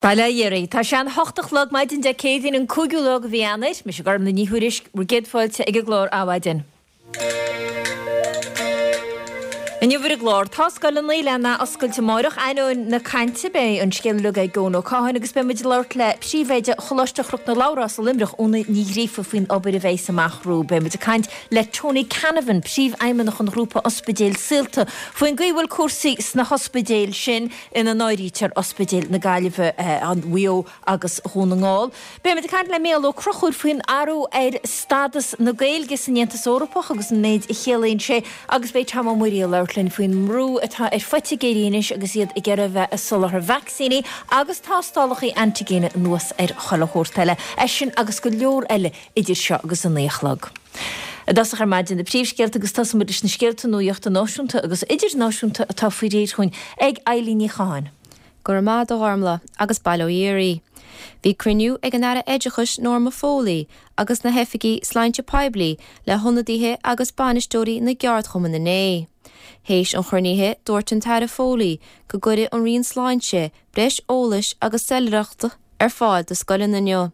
Bail ó Dhia oraibh. Tá sé an hocht a chlog maidin Dé Céadaoin an cúigiú lá de mhí Eanáir. Mise Gormlaith Ní Thuairisg, bhur gcéad fáilte ag an gclár Adhmhaidin. Inniu ar an gclár, tá scoileanna le n-athoscailt amáireach. Ainneoin na cainte, beidh an scéal uilig ag Eoin Ó Catháin agus beidh muid ag labhairt le Príomhoide Choláiste Chnoc na Labhrás i Luimneach, Úna Ní Ghríofa faoin obair a bheidhs amach rompu. Beidh muid ag caint le Tony Canavan, Príomhfheidhmeannach an ghrúpa Ospidéil Saolta, faoin gcaoi a bhfuil cúrsaí sna hospidéil sin. ina n-áirítear Ospidéil na Gaillimhe, Mhaigh Eo agus Dhún na nGall. Beimid ag caint le Mícheál Ó Conchúir faoin athrú ar stádas na Gaeilge san Aontas Eorpach agus an méid a chiallaíonn sé agus beidh Tom Ó Muirí ag labhairt linn faoin mbrú atá ar phoitigéirí anois agus iad ag iarraidh a bheith ag soláthar vacsaíní agus tástálacha antaigine anuas ar chuile shórt eile. É sin agus go leor eile idir seo agus a 9 a chlog. I dtosach ar maidin na príomhscéalta agus tosóidh muid leis na scéalta nuachta náisiúnta agus idirnáisiúnta atá faoi réir chugainn ag Eilín Ní Chatháin. Go raibh maith agat a Ghormlaith, agus bail ó Dhia oraibh. Bhí cruinniú ag an Aire Oideachais Norma Foley agus na hoifigigh sláinte poiblí le hionadaithe agus bainisteoirí na gceardchumann inné. Théis an chruinnithe dúirt an tAire Foley go gcuirfidh an Roinn Sláinte breis eolais agus soiléireachta ar fáil do scoileanna inniu.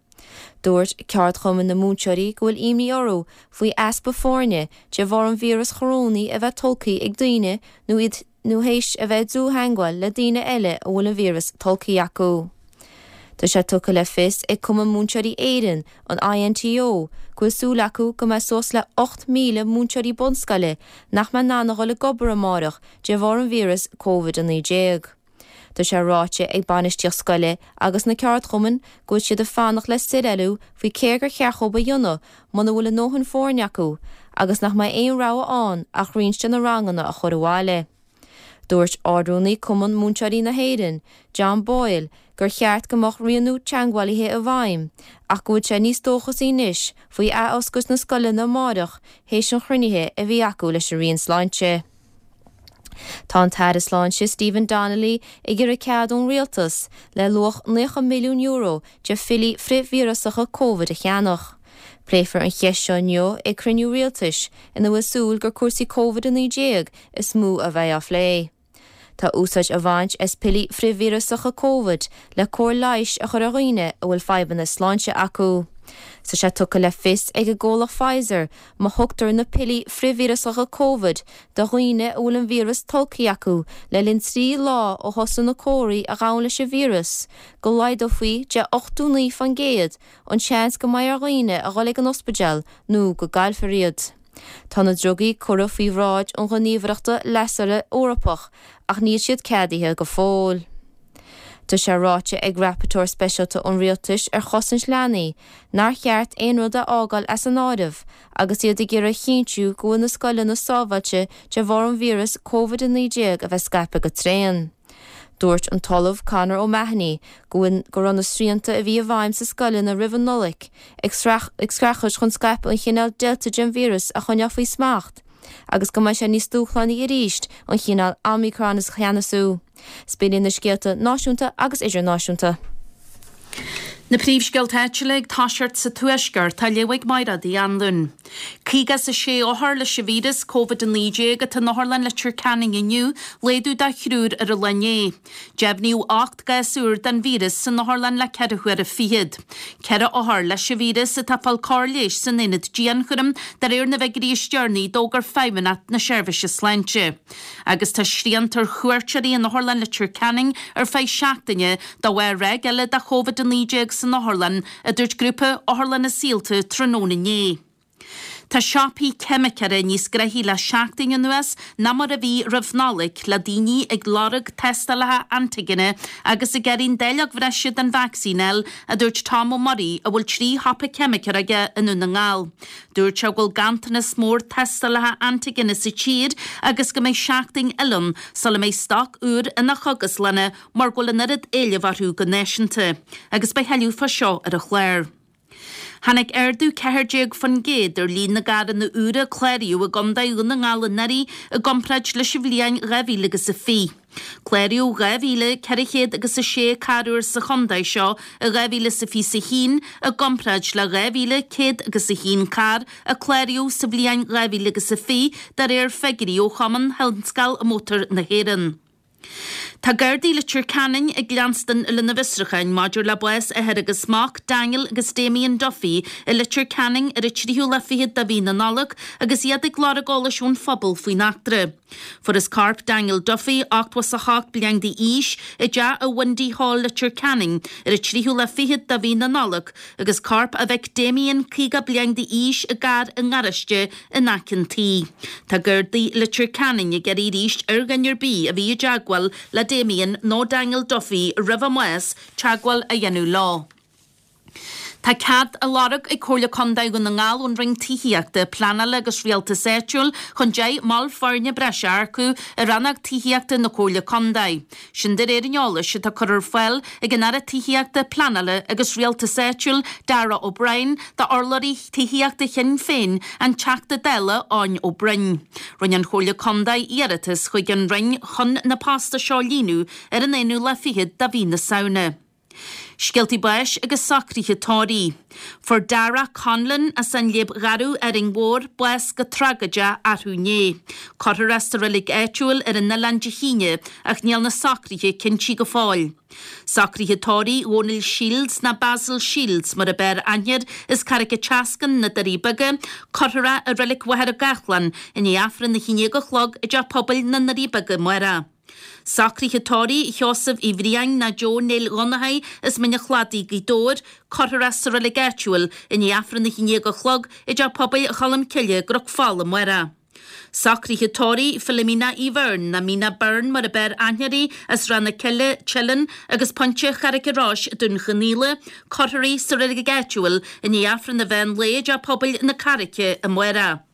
Dúirt ceardchumann na múinteoirí go bhfuil imní orthu faoi easpa foirne de bharr an víreas chorónaigh a bheith tolgtha ag daoine nó iad nó théis a bheith i dlúth-theangmháil le daoine eile a bhfuil an víreas tolgtha acu. Tá sé tugtha le fios ag Cumann Múinteoirí Éireann, an INTO, go bhfuil súil acu go mbeidh suas le 8,000 múinteoirí bunscoile nach mbeidh in ann a dhul ag obair amárach de bharr an víreas Covid-19. Tá sé ráite ag bainistíocht scoile agus na ceardchumainn go bhfuil siad ag fanacht le soiléiriú faoi céard gur cheart dhóibh a dhéanamh muna bhfuil a ndóthain foirne acu agus nach mbeidh aon rogha ann ach roinnt de na ranganna a chur abhaile. Dúirt Ard-Rúnaí Cumann Múinteoirí na hÉireann, John Boyle, gur cheart go mbeadh rianú teagmhálaithe i bhfeidhm ach go bhfuil sé níos dóchasaí anois faoi athoscailt na scoileanna amáireach théis an chruinnithe a bhí acu leis an Roinn Sláinte. Tá an tAire Sláinte Stephen Donnelly ag iarraidh cead ón Rialtas le luach €90 milliún de phiollaí frithvíreasacha Covid a cheannach. Pléifear an cheist seo inniu ag cruinniú Rialtais ina bhfuil súil gur cúrsaí Covid-19 is mó a bheidh á phlé. Tá úsáid á bhaint as piollaí frithvíreasacha Covid le cóir leighis a chur ar dhaoine a bhfuil fadhbanna sláinte acu. Tá sé tugtha le fios ag an gcomhlacht Pfizer má thugtar na piollaí frithvíreasacha Covid do dhaoine a bhfuil an víreas tolgtha acu le linn 3 lá ó thosaigh na comharthaí a ghabhann leis an víreas, go laghdófaí de 89% an seans go mbeidh ar dhaoine a dhul ag an ospidéal nó go gcaillfear iad. Tá na drugaí curtha faoi bhráid an Ghníomhaireachta Leigheasra Eorpach ach níl siad ceadaithe go fóill. Tá sé ráite ag Rapporteur Speisialta an Rialtais ar Chosaint Leanaí nár cheart aon rud a fhágáil as an áireamh agus iad ag iarraidh a chinntiú go bhfuil na scoileanna sábháilte de bharr an víreas Covid-19 a bheith scaipthe go tréan. Dúirt an tOllamh Conor O'Mahony go bhfuil go raibh na srianta a bhí i bhfeidhm sa scoileanna roimh an Nollaig ag streachailt chun scaipeadh an chineál Delta den víreas a choinneáil faoi smacht agus go mbeidh sé níos dúshlánaí arís an chineál Omicron a cheannasú. B'in iad na scéalta náisiúnta agus idirnáisiúnta. Na príomhscéalta áitiúla ag toiseacht sa Tuaisceart, á léamh ag Mairéad Uí Anluain. 56 othar leis an víreas Covid-19 atá in Otharlann Leitir Ceanainn inniu, laghdú de thriúr ar an lá inné. Deimhníodh 8 gcás úr den víreas san otharlann le ceithre huaire fichead. Ceithre othar leis an víreas atá ag fáil cóir leighis san aonad dianchúraim, de réir na bhfigiúirí is deireanaí a d'fhógair Feidhmeannacht na Seirbhíse Sláinte. Agus tá srianta ar chuairteoirí in Otharlann Leitir Ceanainn ar feadh seachtaine de bharr ráig eile de Covid-19 san otharlann, a dúirt grúpa Otharlanna Saolta tráthnóna inné. Tá siopaí ceimiceora níos gnoithí le seachtain anuas ná mar a bhí roimh Nollaig, le daoine ag lorg tástálacha antaigine agus ag iarraidh an dáileog bhreise den vacsaín a fháil, a dúirt Tom Ó Muirí, a bhfuil 3 shiopa ceimiceora aige i nDún na nGall. Dúirt sé go bhfuil ganntanas mór tástálacha antaigine sa tír agus go mbeidh seachtain eile ann sula mbeidh stoc úr ina chógaslanna mar go bhfuil an oiread éilimh orthu go náisiúnta. Agus beidh tuilleadh fá seo ar an chlár. Tháinig ardú 14% ar líon na gcarranna úra a cláraíodh i gContae Dhún na nGall anuraidh i gcomparáid leis an bhliain 2020. Cláraíodh 2,400 agus 6 carr úr sa chontae seo i 2021 i gcomparáid le 2,100 agus 1 carr a cláraíodh sa bhliain 2020 de réir figiúirí ó Chumann Thionscal Mótar na hÉireann. Tá Gardaí Leitir Ceanainn ag leanstan lena bhfiosrúcháin maidir le bás athar agus mac, Daniel agus Damien Duffy, i Leitir Ceanainn ar an tríú lá fichead de mhí na Nollag agus iad ag lorg eolais ón phobal faoin eachtra. Fuarthas corp Daniel Duffy, 88 bliain d'aois, i dteach i Windy Hall, Leitir Ceanainn, ar an tríú lá fichead de mhí na Nollag agus corp a mhic Damien, 50 bliain d'aois, i gcarr i ngaráiste in aice an tí. Tá Gardaí Leitir Ceanainn ag iarraidh arís ar dhuine ar bith a bhí i dteagmháil le Damien nó Daniel Duffy roimh a mbás, teagmháil a dhéanamh leo. Tá cead á lorg ag Comhairle Contae Dhún na nGall ón Roinn Tithíochta, Pleanála agus Rialtais Áitiúil chun 10 mball foirne breise a earcú i rannóg tithíochta na Comhairle Contae. Sin de réir an eolais atá curtha ar fáil ag an Aire Tithíochta, Pleanála agus Rialtais Áitiúil, Darragh O'Brien, d'urlabhraí tithíochta Shinn Féin, an Teachta Dála Eoin Ó Broin. Rinne an Chomhairle Contae iarratas chuig an Roinn chun na postanna seo a líonadh ar an aonú lá fichead de mhí na Samhna. Scéaltaí báis agus socruithe tórraimh. Fuair Darragh Conlon as an Léib Gharbh, Árainn Mhór, bás go tragóideach arú inné. Cuirfear é sa reilig áitiúil ar an oileán Dé hAoine ach níl na socruithe cinntí go fóill. Socruithe tórraimh Dhónaill Shields ná Basil Shields mar ab fhearr aithne air as Carraig an tSeascainn, Na Doirí Beaga, cuirfear é i reilig Mhachaire Gathlán i ndiaidh Aifreann 11 a chlog i dTeach Pobail na nDoirí Beaga amárach. Socruithe tórraimh Sheosaimh Uí Bhriain ná Joe Néill Dhonnchaidh as Mín an Chladaigh, Gaoth Dobhair, cuirfear é sa reilig áitiúil i ndiaidh Aifreann 11 a chlog i dTeach Pobail Cholm Cille i gCnoc Fola amárach. Socruithe tórraimh Philomena Uí Bheirn ná Mina Byrne mar ab fhearr aithne uirthi as Ráth na Cille, Teileann agus Pointe Charraig an Rois, Dún Chonaill, cuirfear í sa reilig áitiúil i ndiaidh Aifreann an mheán lae i dTeach Pobail na Carraice amárach.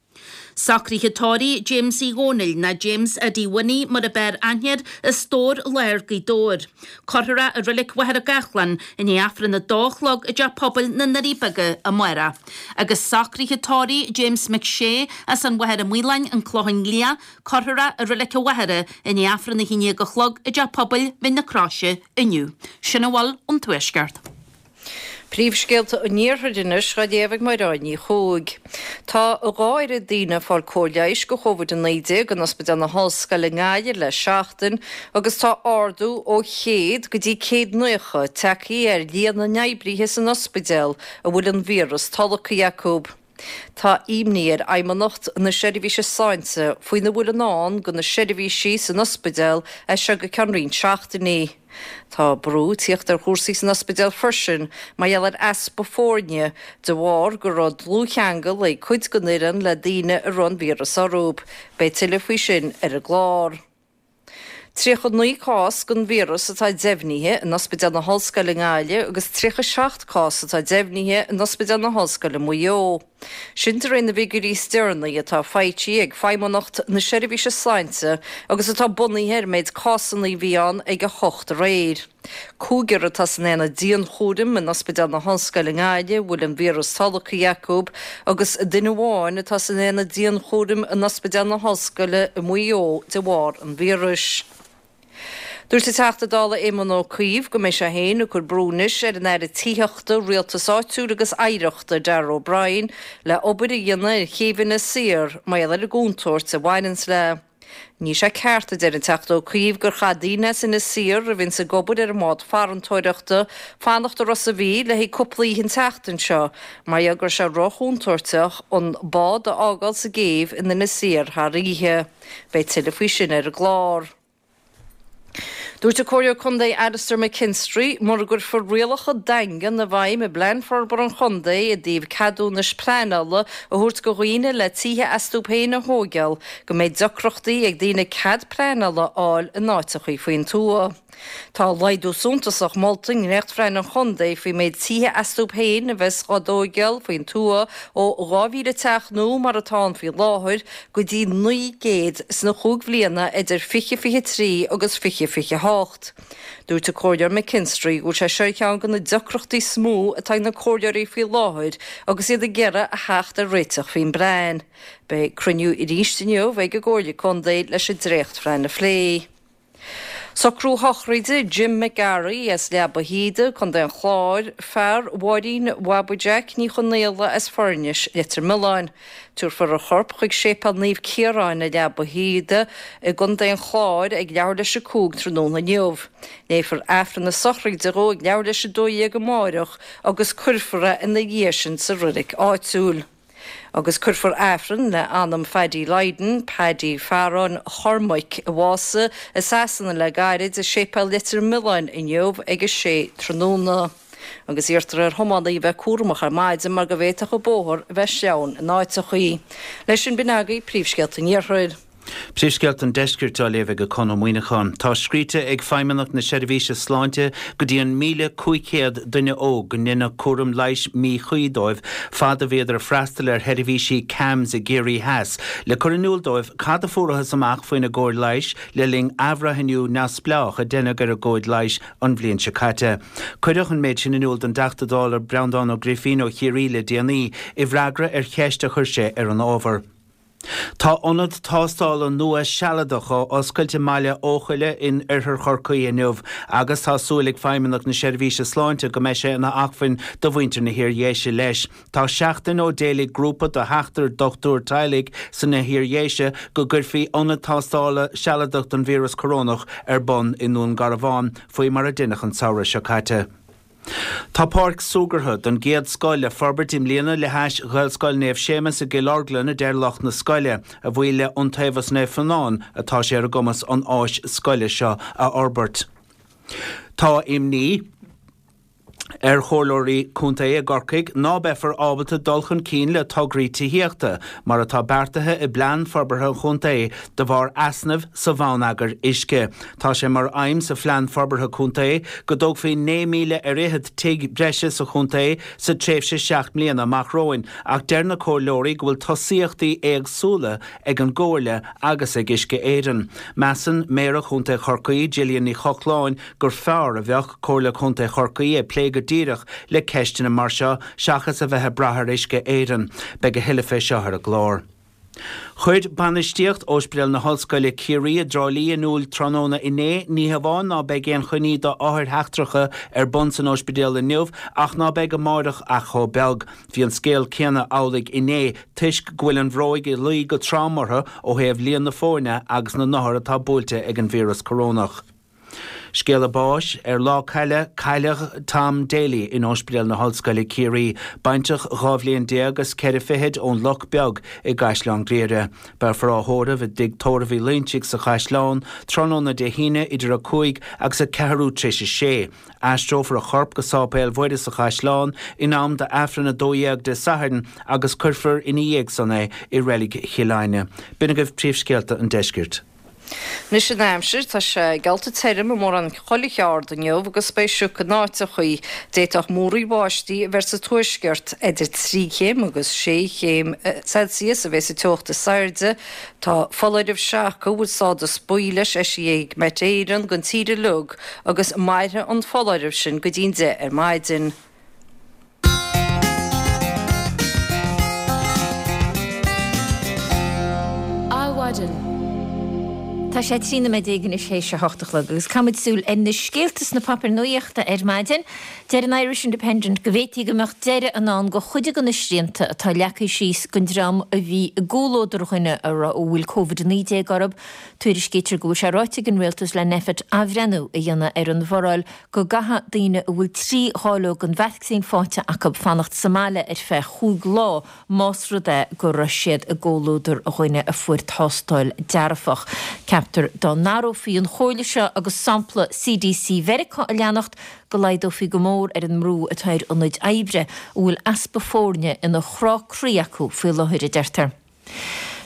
Socruithe tórraimh James Uí Dhónaill, ná James Eddie Winnie mar ab fhearr aithne air, as Dobhar Láir, Gaoth Dobhair. Cuirfear é i Reilig Mhachaire Gathlán i ndiaidh Aifreann a dó a chlog i dTeach Pobail na nDoirí Beaga amárach. Agus socruithe tórraimh James McShea as an Mhachaire Maoláin, An Clochán Liath, cuirfear é i Reilig an Mhachaire i ndiaidh Aifreann a haon déag a chlog i dTeach Pobail Mhín na Croise inniu. Sin a bhfuil ón Tuaisceart. Príomhscéalta an Iarthair anois á léamh ag Mairéad Ní Chuaig. Tá a dhá oiread daoine ag fáil cóir leighis do Chóvid-19 in Ospidéal na hOllscoile i nGaillimh le seachtain agus tá ardú ó 100 go dtí 190 tagtha ar líon na n-oibrithe san ospidéal a bhfuil an víreas tolgtha acu. Tá imní ar Fheidhmeannacht na Seirbhíse Sláinte faoina bhfuil i ndán do na seirbhísí san ospidéal as seo go ceann roinnt seachtainí. Tá brú ag tíocht ar chúrsaí san ospidéal freisin mar gheall ar easpa foirne de bharr go raibh dlúthcheangal ag cuid den fhoireann le daoine a raibh an víreas orthu. Beidh tuilleadh faoi sin ar an gclár. 39 cás den víreas atá deimhnithe in Ospidéal na hOllscoile i nGaillimh agus 37 cás atá deimhnithe in Ospidéal na hOllscoile Maigh Eo. Sin de réir na bhfigiúirí is deireanaí atá faighte ag Feidhmeannacht na Seirbhíse Sláinte agus atá bunaithe ar an méid cásanna a bhí ann ag 8 aréir. Cúigear atá san aonad dianchúraim in Ospidéal na hOllscoile i nGaillimh a bhfuil an víreas tolgtha acu agus duine amháin atá san aonad dianchúraim in Ospidéal na hOllscoile i Maigh Eo de bharr an víris. Dúirt an Teachta Dála Éamon Ó Cuív go mbeidh sé féin ag cur brú anois ar an Aire Tithíochta, Rialtais Áitiúil agus Oidhreachta, Darragh O'Brien, le obair a dhéanamh ar chéibh Inis Oírr mar gheall ar an gcontúirt a bhaineanns léi. Níl sé ceart, a deir an Teachta Ó Cuív, gur chaith daoine as Inis Oírr a bhíonns ag obair ar an mbád farantóireachta fanacht i Ros a' Mhíl le haghaidh cúpla oíche an tseachtain seo mar gheall go raibh sé róchontúirteach an bád a fhágáil sa gcéibh in Inis Oírr thar oíche. Beidh tuilleadh faoi sin ar an gclár. Dúirt an Comhairleoir Contae Alastair McKinstry, mura gcuirfear rialacha daingean i bhfeidhm i bPlean Forbartha an Chontae i dtaobh ceadúnais pleanála a thabhairt go dhaoine le tithe astu féin a thóigeáil, go mbeidh deacrachtaí ag daoine cead pleanála a fháil in áiteachaí faoin tuath. Tá laghdú suntasach molta i ndréachtphlean an chontae faoin méid tithe astu féin a bheas á dtóigeáil faoin tuath ó 2,000 teach nua mar atá ann faoi láthair go dtí 900 sna chúig bhliana idir 2023 agus 2028. Dúirt an Comhairleoir McKinstry go bhfuil sé seo ar cheann de na deacrachtaí is mó atá ag na comhairleoirí faoi láthair agus iad ag iarraidh a theacht ar réiteach faoin bplean. Beidh cruinniú arís inniu ag an gComhairle Contae leis an dréachtphlean a phlé. Socrú sochraide Jim McGarry as Leaba Shíoda, Co. an Chláir, fear Mháirín Bhabaí Jack Ní Chonaola as Foirnis, Leitir Mealláin. Tabharfar a chorp chuig Séipéal Naomh Ciaráin i Leaba Shíoda i gContae an Chláir ag leathuair leis a 5 tráthnóna inniu. Léifear Aifreann na sochraide dhó ag leathuair leis a 12 amáireach agus cuirfear é ina dhiaidh sin sa roilig áitiúil. Agus cuirfear Aifreann le anam Phaddy Lydon, Paddy Phearáin Chormaic, a bhásaigh i Sasana le gairid, i Séipéal Leitir Mealláin inniu ag a sé tráthnóna. Agus iarrtar ar thiománaithe a bheith cúramach ar maidin mar go bhféadfadh an bóthar a bheith sleamhain in áiteachaí. Leis sin b'in agaibh príomhscéalta an Iarthair. Príomhscéalta an Deiscirt á léamh ag Conn Ó Muíneacháin. Tá scríte ag Feidhmeannacht na Seirbhíse Sláinte go dtí an 1,500 duine óg go ndeineadh cúram leighis míchuí dóibh fad a bhíodar ag freastal ar sheirbhísí CAMHS i gCiarraí Theas le cur in iúl dóibh cad a fuarathas amach faoina gcóir leighis le linn athbhreithniú neamhspleách a deineadh ar a gcomhaid leighis an bhliain seo caite. Cuireadh an méid sin in iúl don dTeachta Dála Breandán Ó Grifín ó Chiarraí le déanaí i bhfreagra ar cheist a chuir sé ar an ábhar. Tá ionad tástála nua sealadach á oscailt i mBaile Eochaille in oirthear Chorcaí inniu agus tá súil ag Feidhmeannacht na Seirbhíse Sláinte go mbeidh sé ina acmhainn do mhuintir na hIardhéise leis. Tá seachtain ó d'éiligh grúpa de sheachtar dochtúir teaghlaigh sna hIardhéise go gcuirfí ionad tástála sealadach don víreas corónach ar bun i nDún Garbhán faoi mar a deineadh an samhradh seo caite. Tá páirc súgartha den gcéad scoth le forbairt i mbliana le hais Ghaelscoil Naomh Séamus i gCill Orglan a deir lucht na scoile. A bhuí le Iontaobhas Naomh Fionán atá sé ar a gcumas an áis scoile seo a fhorbairt. Tá imní ar chomhairleoirí contae i gCorcaigh ná beifear ábalta dul chun cinn le tograí tithíochta mar atá beartaithe i bplean forbartha an chontae de bharr easnaimh sa bhonneagar uisce. Tá sé mar aidhm sa Phlean Forbartha Contae go dtógfaí 9,000 ar fhichead tigh breise sa chontae sa tréimhse seacht mbliana amach romhainn ach deir na comhairleoirí go bhfuil tosaíochtaí éagsúla ag an gComhairle agus ag Uisce Éireann. Measann Méara Chontae Chorcaí, Gillian Ní Chochláin, gur fearr a bheadh Comhairle Contae Chorcaí ag plé go díreach le ceisteanna mar seo seachas a bheith ag brath ar Uisce Éireann. Beidh a thuilleadh fé seo ar an gclár. Chuir bainistíocht Ospidéal na hOllscoile Ciarraí i dTrá Lí in iúl tráthnóna inné, ní hamháin ná beidh aon choinní do othair sheachtracha ar bun san ospidéal inniu ach ná beidh amáireach ach chomh beag. Bhí an scéal céanna amhlaidh inné toisc go bhfuil an bhróig ag luí go trom orthu ó thaobh líon na foirne agus na n-othar atá buailte ag an víreas corónach. Scéala báis, Ar Lá Caille, cailleadh Tom Daly in Ospidéal na hOllscoile Ciarraí, baintreach 12 bhliain is ceithre fichid ón Loch Beag i gCaisleán Ghriaire. Beifear á thórramh i dTigh Tórraimh Uí Loinsigh sa Chaisleán tráthnóna Dé hAoine idir 5 agus a ceathrú tar éis a sé. Aistreofar a chorp go Sáipéal Mhuire sa Chaisleán in am d'Aifreann 12 Dé Sathairn agus cuirfear ina dhiaidh san é i Reilig Chill Airne. B'in agaibh príomhscéalta an deiscirt. Anois an aimsir, tá sé geallta tirim i mórán chuile cheard inniu agus beidh sioc in áiteachaí. D'fhéadfadh múraíl bháistí a bheith sa tuaisceart. Idir 3 chéim agus 6 chéim Celsius a bheas an teocht is airde. Tá foláireamh seaca a bhfuil stádas buí leis eisithe ag Met Éireann don tír uilig agus mairfidh an foláireamh sin go dtí'n 10 ar maidin. Adhmhaidin. Tá sé 13 nóiméad anois théis a hocht a chlog agus caithfimid súil ar na scéalta sna páipéir nuachta ar maidin. Deir an Irish Independent go bhféadfaí go mbeadh deireadh i ndán do chuid de na srianta atá leagtha síos don dream a bhí i gcomhluadar dhuine a bhfuil Covid-19 orthu. Tuairiscítear go bhfuil sé ráite ag an Rialtas le Nphet athbhreithniú a dhéanamh ar an bhforáil go gcaithfidh daoine a bhfuil 3 dháileog den vacsaín faighte acu fanacht sa mbaile ar feadh chúig lá más rud é go raibh siad i gcomhluadar dhuine a fuair tástáil dearfach. Ceaptar dá n-athrófaí an chomhairle seo agus sampla CDC Mheiriceá a leanacht go laghdófaí go mór ar an mbrú atá ar ionaid oibre a bhfuil easpa foirne ina chrá croí acu faoi láthair, a deirtear.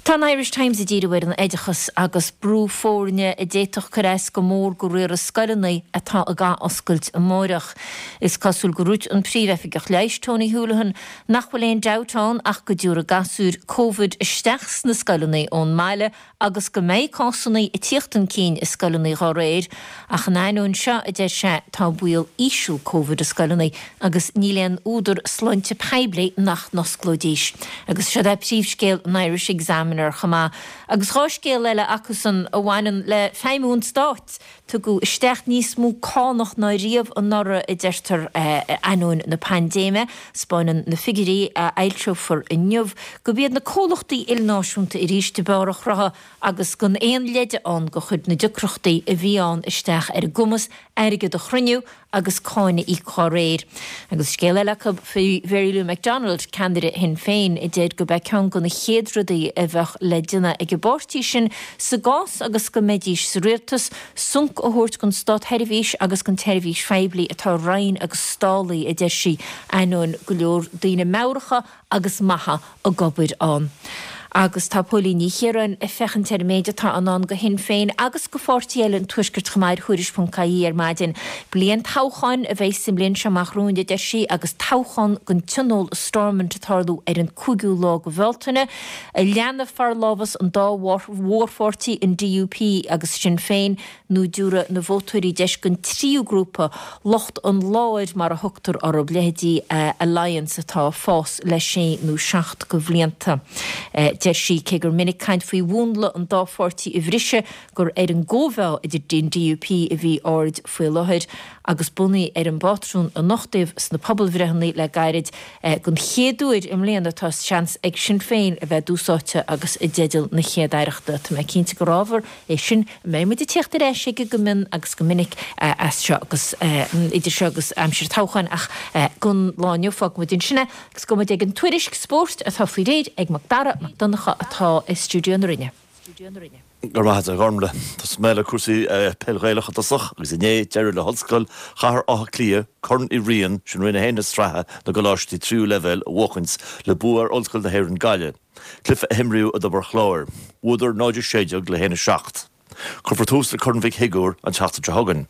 Tá an Irish Times ag díriú ar an oideachas agus brú foirne a d'fhéadfadh cur as go mór go riaradh scoileanna atá ag ath-oscailt amáireach. Is cosúil gur dhúirt an Príomh-Oifigeach Leighis, Tony Holohan, nach bhfuil aon dabht ann ach go dtiúrfaidh gasúir Covid isteach sna scoileanna ón mbaile agus go mbeidh cásanna ag tíocht chun cinn i scoileanna dhá réir, ach in ainneoin seo, a deir sé, tá baol íseal Covid i scoileanna agus níl aon údar sláinte poiblí nach n-osclóidís. Agus siod é príomhscéal an Irish Examiner. Examiner chomh maith. Agus 2 scéal eile acusan a bhaineann le feidhmiú an stáit. Tugadh isteach níos mó cánach ná riamh anuraidh, a deirtear, ainneoin na paindéime. 'Spáineann na figiúirí a fhoilseofar inniu gurb iad na comhlachtaí ilnáisiúnta arís ab fhearr a chruthaigh agus gan aon leide ann gur chuir na deacrachtaí a bhí ann isteach ar a gcumas airgead a chruinniú agus cáin a íoc dá réir. Agus scéal eile acu faoi Mhary Lou McDonald, ceannaire Shinn Féin, a deir gurb é ceann de na chéad rudaí a bheadh le déanamh ag an bpáirtí sin sa gcás agus go mbeidís sa rialtas, sonc a thabhairt don státsheirbhís agus don tseirbhís phoiblí atá righin agus stálaithe, a deir sí, ainneoin go leor daoine meabhracha agus maithe ag obair ann. Agus tá Póilín Ní Chiaráin ag féachaint ar an méid atá i ndán do Shinn Féin agus do pháirtithe eile an Tuaiscirt chomh maith ar Thuairisc.ie ar maidin. Bliain toghcháin a bheidh sa mbliain seo amach romhainn, a deir sí, agus toghchán don Tionól i Stormont ag tarlú ar an 5ú lá de Bhealtaine. An leanfaidh forlámhas an dá mhórpháirtí, an DUP agus Sinn Féin, nó an dtabharfaidh na vótóirí deis don tríú grúpa, lucht an láir mar a thugtar orthu, leithéidí Alliance atá ag fás le sé nó seacht de bhlianta. Deir sí, cé gur minic caint faoi mhúnla an dá pháirtí a bhriseadh, gur ar an gcóimheá idir an DUP a bhí aird faoi láthair agus bunaithe ar an bpátrún a nochtaíodh sna pobalbhreitheanna le gairid. Don chéad uair i mbliana tá seans ag Sinn Féin a bheith i dtús áite agus i dteideal na Chéad-Aireachta. Tá mé cinnte gur ábhar é sin a mbeidh muid ag tíocht ar ais aige go mion agus go minic as seo agus idir seo agus aimsir toghcháin ach don lá inniu fágfaidh muid ansin é agus gabhfaidh muid ag an tuairisc spóirt atá faoi réir ag Mac Dara Mac Donncha atá i stiúideo na Rinne. Go raibh maith agat a Ghormlaith. Tosóidh mé le cúrsaí peil Ghaelach i dtosach agus inné d'éirigh le hOllscoil Chathair Átha Cliath Corn Uí Riain, sin Roinn 1 na sraithe na gcoláistí tríú leibhéal, a bhuachaint le bua ar Ollscoil na hÉireann Gaillimh. Cluiche a himríodh i dTobar Chláir. Bhuadar 0-16 le 1-7. Cuirfear tús le Corn Mhic Shigiúir an tseachtain seo chugainn.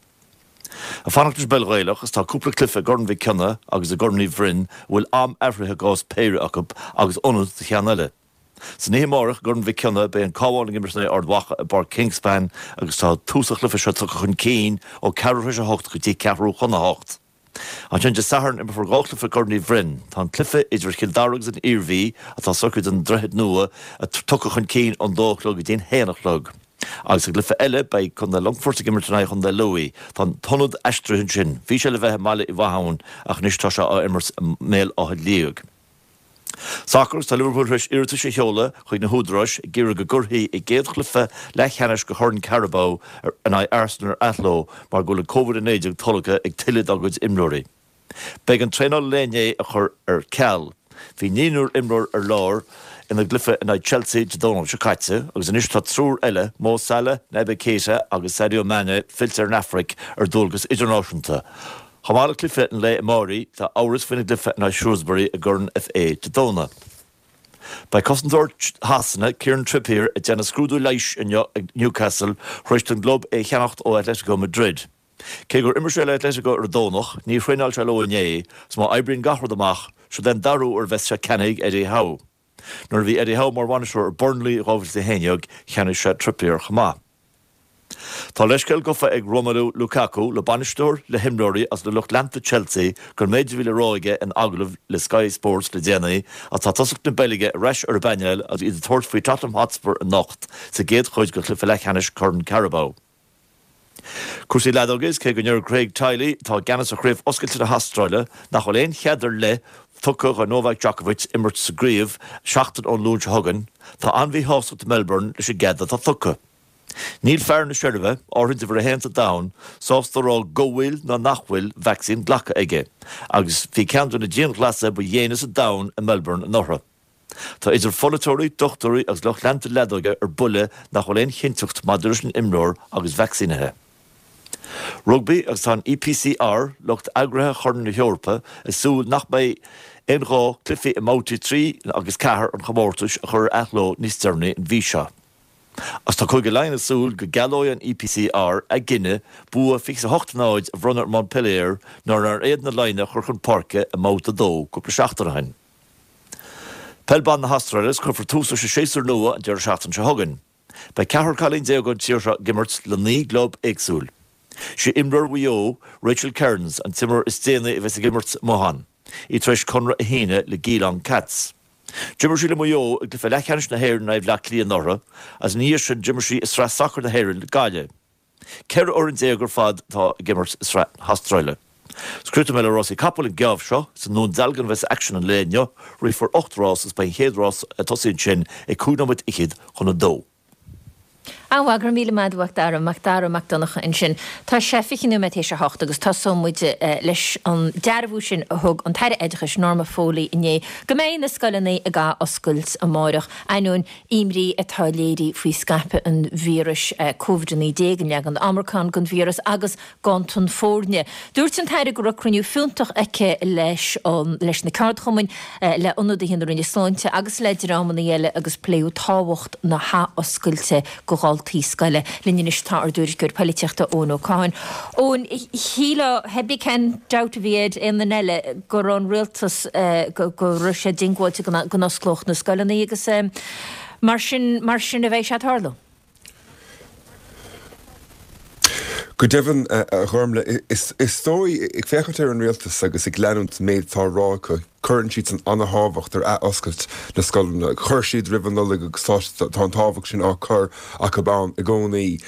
Ag fanacht leis an bpeil Ghaelach is tá cúpla cluiche i gCorn Mhic Cionnaith agus i gCorn Uí Bhroin a bhfuil am athraithe i gcás péire acu agus ionad do cheann eile. San oíche amárach i gCorn Mhic Cionnaith beidh an Cabhán ag imirt in aghaidh Ard Mhacha i bPáirc Kingspan agus tá tús an chluiche seo tugtha chun cinn ó ceathrú tar éis a hocht go dtí ceathrú chun a hocht. Ansin Dé Sathairn imreofar 2 chluiche i gCorn Uí Bhroin. Tá an cluiche idir Chill Dara agus an Iarmhí, atá socraithe don Droichead Nua, tugtha chun cinn ón dó a chlog go dtí an haon a chlog. Agus sa gcluiche eile beidh Contae Longfoirt ag imirt in aghaidh Chontae Lú. Tá an t-ionad aistrithe ansin. Bhí sé le bheith i mBaile Uí Mhatháin ach anois tá sé á imirt i mBéal Átha Liag. Sacar, Tá Liverpool tar éis iarratais a sheoladh chuig na húdaráis ag iarraidh go gcuirfí a gcéad chluiche leathcheannais de Chorn Carabao in aghaidh Arsenal ar athló mar go bhfuil an Covid-19 tolgtha ag tuilleadh dá gcuid imreoirí. B'éigean traenáil an lae inné a chur ar ceal. Bhí naonúr imreoir ar lár ina gcluiche in aghaidh Chelsea Dé Domhnaigh seo caite agus anois tá triúr eile, Mo Salah, Naby Keita agus Sadio Mane fillte ar an Afraic ar dualgas idirnáisiúnta. Chomh maith le cluiche an lae amáirigh, tá amhras faoina gcluiche in aghaidh Shrewsbury i gCorn FA Dé Domhnaigh. Beidh cosantóir Shasana, Kieran Trippier, ag déanamh scrúdú leighis inniu ag Newcastle tar éis don gclub é a cheannacht ó Atletico Madrid. Cé gur imir sé le Atletico ar an Domhnach, níor thraenáil sé leo inné, 's má oibríonn gach rud amach, siod é an dara huair a bheas sé ceannaithe ag Eddie Howe. Nuair a bhí Eddie Howe mar bhainisteoir ar Burnley i 2011, cheannaigh sé Trippier chomh maith. Tá leithscéal gafa ag Romelu Lukaku le bainisteoir, le himreoirí agus le lucht leanta Chelsea don méid a bhí le rá aige in agallamh le Sky Sports le déanaí ach tá tosach na Beilge ar ais ar an bpainéal agus iad ag tabhairt faoi Tottenham Hotspur anocht sa gcéad chuid de chluiche leathcheannais Chorn Carabao. Cúrsaí leadóige Is cé go ndeir Craig Tiley, atá i gceannas ar Chraobh Oscailte na hAstráile, nach bhfuil aon chead ar leith tugtha do Novak Djokovic imirt sa gcraobh seachtain ón Luan seo chugainn, tá an-mhíshástacht i Melbourne leis an gcead atá tugtha. Níl fear na Seirbia, áirithe uimhir a haon sa domhan, sásta a rá go bhfuil nó nach bhfuil vacsaín glactha aige, agus bhí ceann de na dianghlasála ba dhéine sa domhan i Melbourne anuraidh. Tá idir pholaiteoirí, dochtúirí agus lucht leanta leadóige ar buile nach bhfuil aon chinnteacht maidir leis an imreoir agus vacsaínithe. Rugbaí agus tá an EPCR, lucht eagraithe Chorn na hEorpa, ag súil nach mbeidh aon ghá cluichí i mbabhtaí 3 agus 4 an chomórtais a chur ar athló níos deireanaí an mhí seo. Agus tá Cúige Laighean ag súil go gcealóidh an EPCR a gcinneadh bua 28-0 a bhronnadh ar Montpellier nuair nár fhéad na Laighnigh a chur chun páirce i mbabhta 2 cúpla seachtain ó shin. Peil Ban na hAstráile is cuirfear tús leis an séasúr nua an deireadh seachtaine seo chugainn. Beidh ceathrar cailín ón tír seo ag imirt le 9 gclub éagsúil. Sí imreoir Mhaigh Eo, Rachel Kearns, an t-imreoir is déanaí a bheas ag imirt amuigh ann, í tar éis conradh a shíneadh le Geelong Cats. D'imir sí le Maigh Eo i gcluiche leathcheannais na hÉireann in aghaidh Bhleá Cliath anuraidh agus ina dhiaidh sin d'imir sí i Sraith Sacair na Héireann le Gaillimh. 14 fhoireann ar fad atá ag imirt i Sraith na hAstráile. Críochnóidh mé le rásaí capall an geábh seo. Is i nDún Dealgan a bheas aicsean an lae inniu. Rithfear 8 rás agus beidh an chéad rás ag tosaí ansin ag 25 nóiméad chun a dó. An-mhaith, go raibh míle maith agat a Mhac Dara, Mac Dara Mac Donncha ansin. Tá sé 20 nóiméad théis a hocht agus tosóidh muid leis an dearbhú sin a thug an tAire Oideachais Norma Foley inné go mbeidh na scoileanna ag ath-oscailt amáireach, ainneoin imní atá léirithe faoi scaipeadh an víris Covid-19, an leagan Omicron den víreas agus ganntan foirne. Dúirt an tAire go raibh cruinniú fiúntach aici leis an leis na ceardchumainn, le ionadaithe na Roinne Sláinte agus le dreamanna eile agus pléadh tábhacht na hathoscailte do dhaltaí scoile. Linn anois tá ár dtuairisceoir poilitíochta Eoin Ó Catháin. Eoin, shílfeá, pé cén dabht a bhí ar aon duine eile go raibh an rialtas, go raibh sé diongbháilte go n-osclódh na scoileanna agus mar sin, mar sin a bheidh sé ag tarlú. Go deimhin, a Ghormlaith, is dóigh, ag féachaint ar an rialtas agus ag leanúint an méid atá á rá acu, cuireann siadsan ana-thábhacht ar ath-oscailt na scoileanna. Chuir siad roimh an Nollaig agus tá an tábhacht sin á cur acu ann i gcónaí.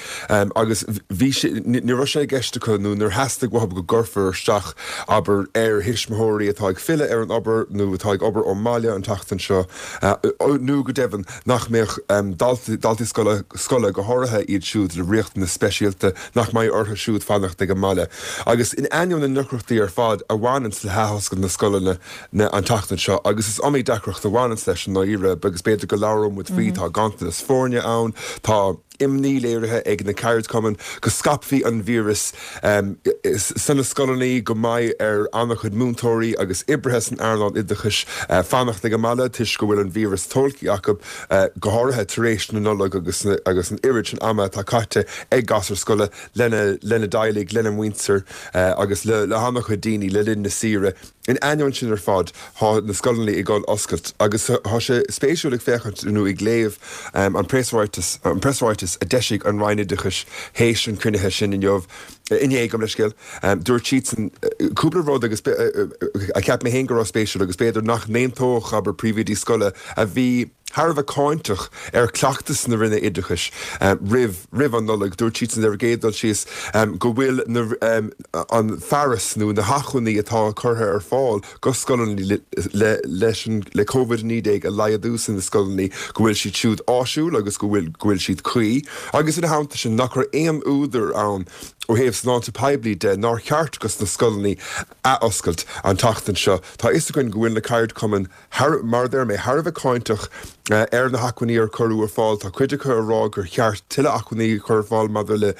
Agus bhí sé, ní raibh sé i gceist acu nó níor theastaigh uathu go gcuirfear isteach, abair, ar thuismitheoirí atá ag filleadh ar an obair nó atá ag obair ón mbaile an tseachtain seo nó go deimhin, nach mbeadh daltaí scoile, scoile, go háirithe iad siúd le riachtanais speisialta, nach mbeidh orthu siúd fanacht ag an mbaile. Agus in ainneoin na ndeacrachtaí ar fad a bhaineanns le hathoscailt na scoileanna an tseachtain seo, agus is iomaí deacracht a bhaineanns leis i ndáiríre, agus b'fhéidir go labhróidh muid faoi, tá ganntanas foirne ann, tá imní léirithe ag na ceardchumainn go scaipfí an víreas sna scoileanna, go mbeidh ar an-chuid múinteoirí agus oibrithe san earnáil oideachais fanacht ag an mbaile toisc go bhfuil an víreas tolgtha acu, go háirithe tar éis na Nollag agus an oiread sin ama atá caite ag gasúir scoile lena dteaghlaigh, lena muintir agus le han-chuid daoine le linn na saoire. In ainneoin sin ar fad, tá na scoileanna ag dul oscailt agus tá sé spéisiúil ag féachaint nó ag léamh an preasráiteas, an preasráiteas a d'eisigh an Roinn Oideachais théis an chruinnithe sin inniu, inné, gabh mo leithscéal. Dúirt siadsan cúpla rud agus a cheap mé féin go raibh spéisiúil agus b'fhéidir nach n-aontódh, abair, príomhoidí scoile a bhí thar a bheith cáinteach ar chleachtas na Roinne Oideachais roimh roimh an Nollaig. Dúirt siadsan ar an gcéad dul síos go bhfuil na an fearas nó na hacmhainní atá curtha ar fáil go scoileanna le leis an le Covid-19 a laghdú sna scoileanna go bhfuil siad siúd áisiúil agus go bhfuil go bhfuil siad cuí agus ina theannta sin nach raibh aon údar ann ó thaobh sláinte poiblí de nár cheart go sna scoileanna athoscailt an tseachtain seo. Tá a fhios againn go bhfuil na ceardchumainn thar, mar a deir mé, thar a bheith cáinteach ar na hacmhainní ar cuireadh ar fáil. Tá cuid acu ag rá gur cheart tuilleadh acmhainní a chur ar fáil maidir le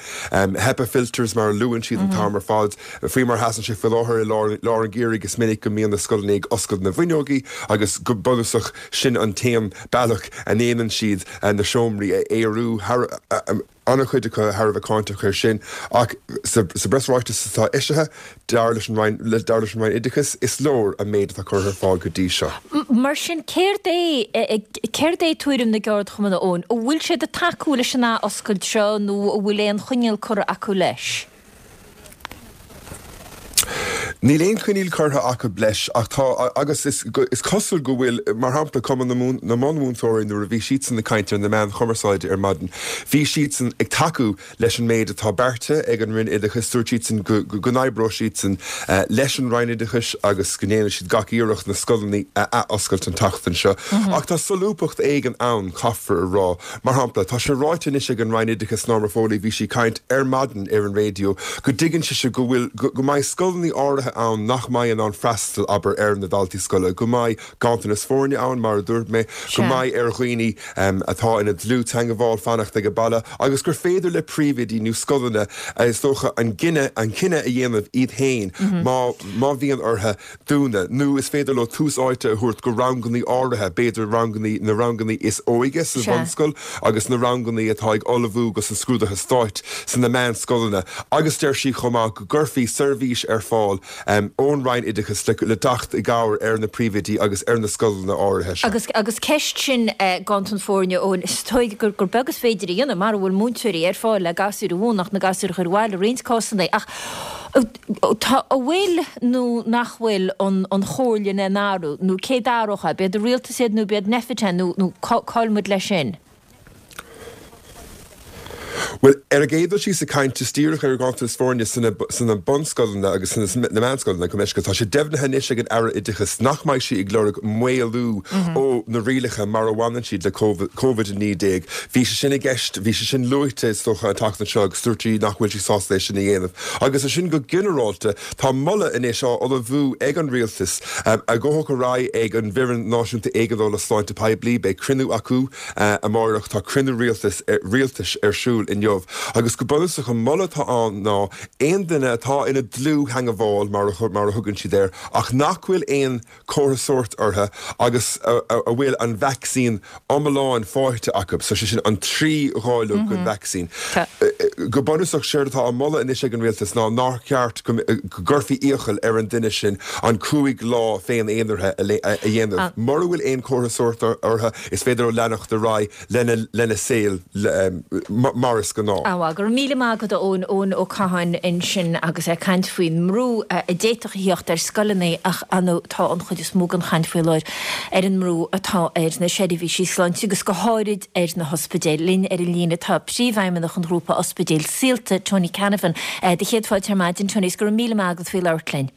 HEPA filters mar a luann siad an t-am ar fad. Faoi mar a sheasann sé faoi láthair i lár an gheimhridh is minic go mbíonn na scoileanna ag oscailt na bhfuinneogaí agus go bunúsach sin an t-aon bealach a ndéanann siad na seomraí a aerú. An-chuid acu thar a bheith cáinteach air sin ach sa bpreasráiteas atá eisithe, dar leis an Roinn, dar leis an Roinn Oideachais, is leor an méid atá curtha ar fáil go dtí seo. Mar sin, céard é, céard é tuairim na gceardchumann, a Eoin? An bhfuil siad ag tacú leis an ath-oscailt seo nó an bhfuil aon choinníoll curtha acu leis? Níl aon choinníoll curtha acu leis ach tá, agus is cosúil go bhfuil, mar shampla, Cumann na mBunmhúinteoirí nuair a bhí siadsan ag caint ar na meáin chumarsáide ar maidin, bhí siadsan ag tacú leis an méid atá beartaithe ag an Roinn Oideachais. Dúirt siadsan go n-oibreoidh siadsan leis an Roinn Oideachais agus go ndéanfaidh siad gach iarracht na scoileanna a athoscailt an tseachtain seo. Ach tá solúbthacht éigin ann, caithfear a rá. Mar shampla, tá sé ráite anois ag an Roinn Oideachais, Norma Foley, bhí sí ag caint ar maidin ar an raidió, go dtuigeann sise go bhfuil, go mbeidh scoileanna áirithe ann nach mbeidh in ann freastal, abair, ar na daltaí scoile, go mbeidh ganntanas foirne ann, mar a dúirt mé, go mbeidh ar dhaoine atá ina dlúth-teangmháil fanacht ag baile agus gur féidir le príomhoidí nó scoileanna, is dócha, an cinneadh, an cinneadh a dhéanamh iad féin má, má bhíonn orthu dúnadh, nó is féidir leo tús áite a thabhairt go rangannaí áirithe, b'fhéidir rangannaí, na rangannaí is óige sa bhunscoil agus na rangannaí atá ag ullmhú dos na scrúduithe stáit sna meánscoileanna. Agus deir sí chomh maith go gcuirfí seirbhís ar fáil. ón Roinn Oideachais le teacht i gcabhair ar na príomhoidí agus ar na scoileanna áirithe seo. Agus agus ceist sin ganntan foirne, Eoin, is dóigh gur beag is féidir a dhéanamh mara bhfuil múinteoirí ar fáil le gasúir a mhúineadh ach na gasúir a chur abhaile i roinnt cásanna. Ach tá, an bhfuil nó nach bhfuil an an chomhairle in aon athrú nó cé d'athródh é? B'iad an rialtas iad nó b'iad Nphet é nó nó cá bhfuil muid leis sin? Bhuel, ar an gcéad dul síos ag caint is díreach ar ghanntanas foirne sna bunscoileanna agus sna meánscoileanna, gabh mo leithscéal, tá sé deimhnithe anois ag an Aire Oideachais nach mbeidh sí ag lorg maolú ó na rialacha mar a bhaineann siad le Covid-19. Bhí sé sin i gceist, bhí sé sin luaite is dócha an tseachtain seo agus dúirt sí nach bhfuil sí sásta é sin a dhéanamh. Agus ansin go ginearálta, tá moladh anois á ullmhú ag an Rialtas a ghabhfaidh ar aghaidh ag an bhFoireann Náisiúnta Éigeandála Sláinte Poiblí. Beidh cruinniú acu. Amárach tá cruinniú rialtais rialtais ar siúl inniu agus go bunúsach an moladh atá ann ná aon duine atá ina dlúth-theangmháil mar a mar a thugann siad air ach nach bhfuil aon chomhartha sóirt orthu agus a bhfuil an vacsaín iomlán faighte acu, so sé sin an 3 dháileog den vacsaín. Go bunúsach séard atá á moladh anois ag an rialtas ná nár cheart go gcuirfí iachall ar an duine sin an 5 lá féin-aonaraithe a dhéanamh mura bhfuil aon chomhartha sóirt orthu. Is féidir leo leanacht ar aghaidh lena saol mar is gnáth. Á, go raibh míle maith agat a Eoin, Eoin Ó Catháin ansin agus é ag caint faoin mbrú a d'fhéadfadh a theacht ar scoileanna ach ar ndóigh tá an chuid is mó den chaint faoi láthair ar an mbrú atá ar na seirbhísí sláinte agus go háirid ar na hospidéil. Linn ar an líne tá Príomhfheidhmeannach an ghrúpa ospidéil Saolta, Tony Canavan. Do chéad fáilte ar maidin Tony is go raibh míle maith agat faoi labhairt linn.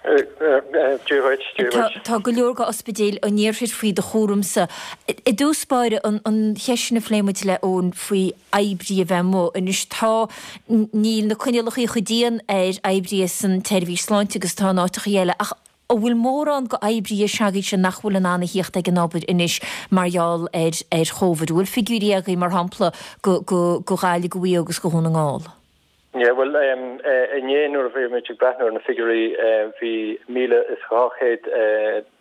Dia dhuit, Dia dhuit. Tá go leor de ospidéil an iarthair faoi do chúramsa. I dtús báire, an cheist sin a phléigh muid le Eoin faoi oibrí a bheith amuigh. Anois tá, níl na coinníollacha chomh dian ar oibrithe san tseirbhís sláinte agus atá in áiteachaí eile ach an bhfuil mórán de oibrithe s'agaibhse nach bhfuil in ann a thíocht ag an obair anois mar gheall ar ar Chóvid? An bhfuil figiúirí agaibh mar shampla go go go Ghaillimh, go Mhaigh Eo agus go Dhún na nGall? Yeah, bhuel, inné nuair a bhí muid ag breathnú ar na figiúirí, bhí 1,200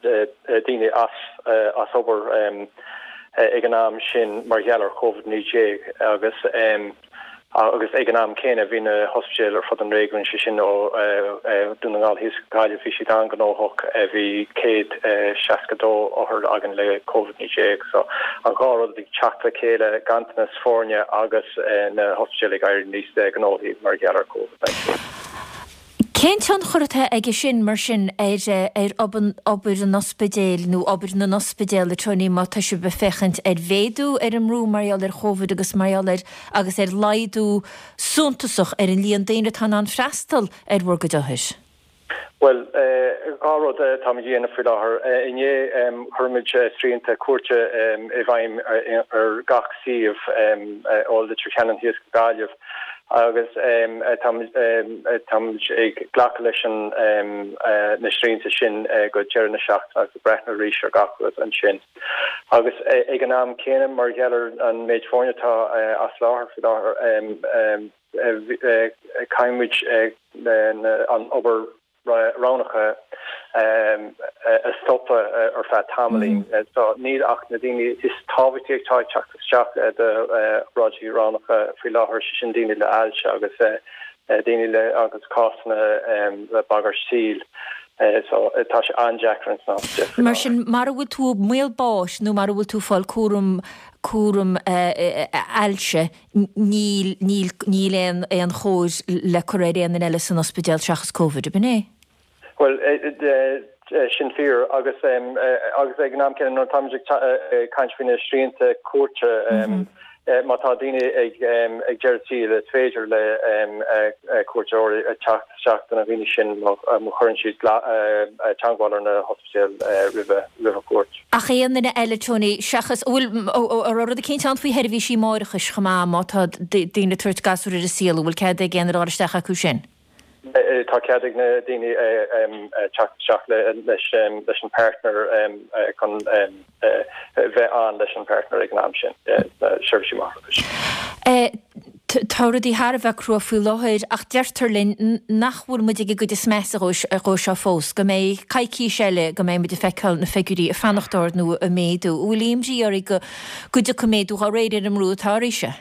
daoine as as obair ag an am sin mar gheall ar Covid-19 agus agus ag an am céanna bhí na hospidéil ar fud an réigiúin, sé sin ó Dún na nGall thíos go Gaillimh, bhí siad an-ghnóthach, bhí 162 othar againn le Covid-19. So an dhá rud ag teacht le chéile, ganntanas foirne agus na hospidéil ag éirí níos gnóthaí mar gheall ar Covid-19. Cén tionchar atá aige sin, mar sin, ar ar obair an ospidéil nó obair na n-ospidéal, a Tony, má tá sibh ag féachaint ar mhéadú ar an mbrú mar gheall ar Chóvid agus mar gheall ar agus ar laghdú suntasach ar an líon daoine atá in ann freastal ar bhur gcuid othair? Bhuel, dhá rud atáimid a dhéanamh faoi láthair. Inné chuir muid srianta cuairte i bhfeidhm ar gach suíomh ó Leitir Ceanainn thíos go Gaillimh agus táimid ag glacadh leis na srianta sin go deireadh na seachtaine agus ag breathnú arís ar gach rud ansin. Agus ag an am céanna, mar gheall ar an méid foirne atá as láthair faoi láthair, Caithfidh muid an obair roghnacha a stopadh ar feadh tamaillín. So níl ach na daoine is tábhachtaí atá ag teacht isteach d'obráidí roghnacha faoi láthair, sé sin daoine le ailse agus daoine le agus cásanna le bagairt saoil. So tá sé an-deacair ins na hospidéil faoi láthair. Mar sin, mara bhfuil tú i mbaol báis nó mara bhfuil tú ag fáil cúram cúram ailse, Níl, níl, níl aon, aon chóir le cur ar aon duine eile san ospidéal seachas Covid, ab in é? Bhuel, sin fíor agus, agus ag an am céanna nuair atáimid ag caint faoi na srianta cuairte, má tá daoine ag, ag deireadh saoil is féidir le cuairteoirí teacht isteach do na daoine sin má chuireann siad teagmháil ar na hospidéil roimhe, roimh an chuairt. Ach aon duine eile, Tony, seachas, an bhfuil, an raibh rud eicínt ann faoi sheirbhísí máithreachais chomh maith, má tá daoine ag tabhairt gasúr ar an saol, an bhfuil cead ag aon duine a dhul isteach acu sin? Tá cead ag na daoine teacht isteach leis an partner chun bheith ann leis an partner ag an am sin, seirbhísí máithreachais. Tá rudaí thar a bheith crua faoi láthair ach deirtear linn nach bhfuil muid ag an gcuid is measa dhó seo fós, go mbeidh coicís eile go mbeidh muid ag feiceáil na figiúirí ag fanacht ard nó ag méadú. An bhfuil imní oraibh go go dtiocfaidh méadú dá réir ar an mbrú atá oraibhse?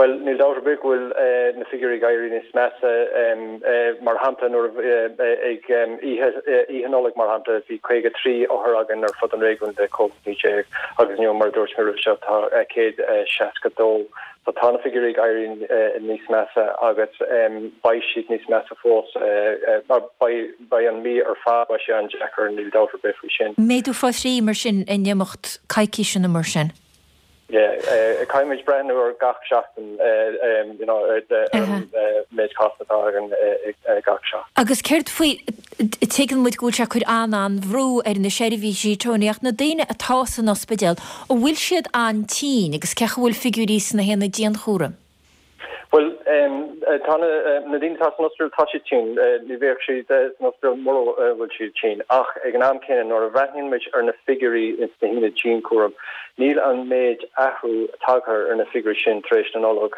Bhuel, níl dabht ar bith go bhfuil na figiúirí ag éirí níos measa. Mar shampla, nuair a ag oíche Oíche Nollag, mar shampla, bhí 53 othar againn ar fud an réigiúin le Covid-19 agus inniu, mar a dúirt mé roimhe seo, tá 162. So tá na figiúirí ag éirí níos measa agus beidh siad níos measa fós. Beidh an mhí ar fad, beidh sé an-deacair, níl dabht ar bith faoi sin. Méadú fá thrí mar sin in imeacht coicíse nó mar sin? Yeah, caithfimid breathnú ar gach seachtain, you know, ar an méid cásanna atá againn gach seachtain. Agus céard faoi, tuigeann muid go bhfuil sé ag cur an-an-bhrú ar na seirbhísí, Tony, ach na daoine atá san ospidéal, an bhfuil siad an-tinn agus cén chaoi a bhfuil figiúirí sna haonaid dianchúraim? Bhuel, tá na daoine atá san ospidéal, tá siad tinn. Ní bheadh siad san ospidéal mura bhfuil siad tinn. Ach ag an am céanna, nuair a bhreathnaíonn muid ar na figiúirí ins na haonaid dianchúraim, níl an méid athrú tagtha ar na figiúirí sin tar éis na Nollag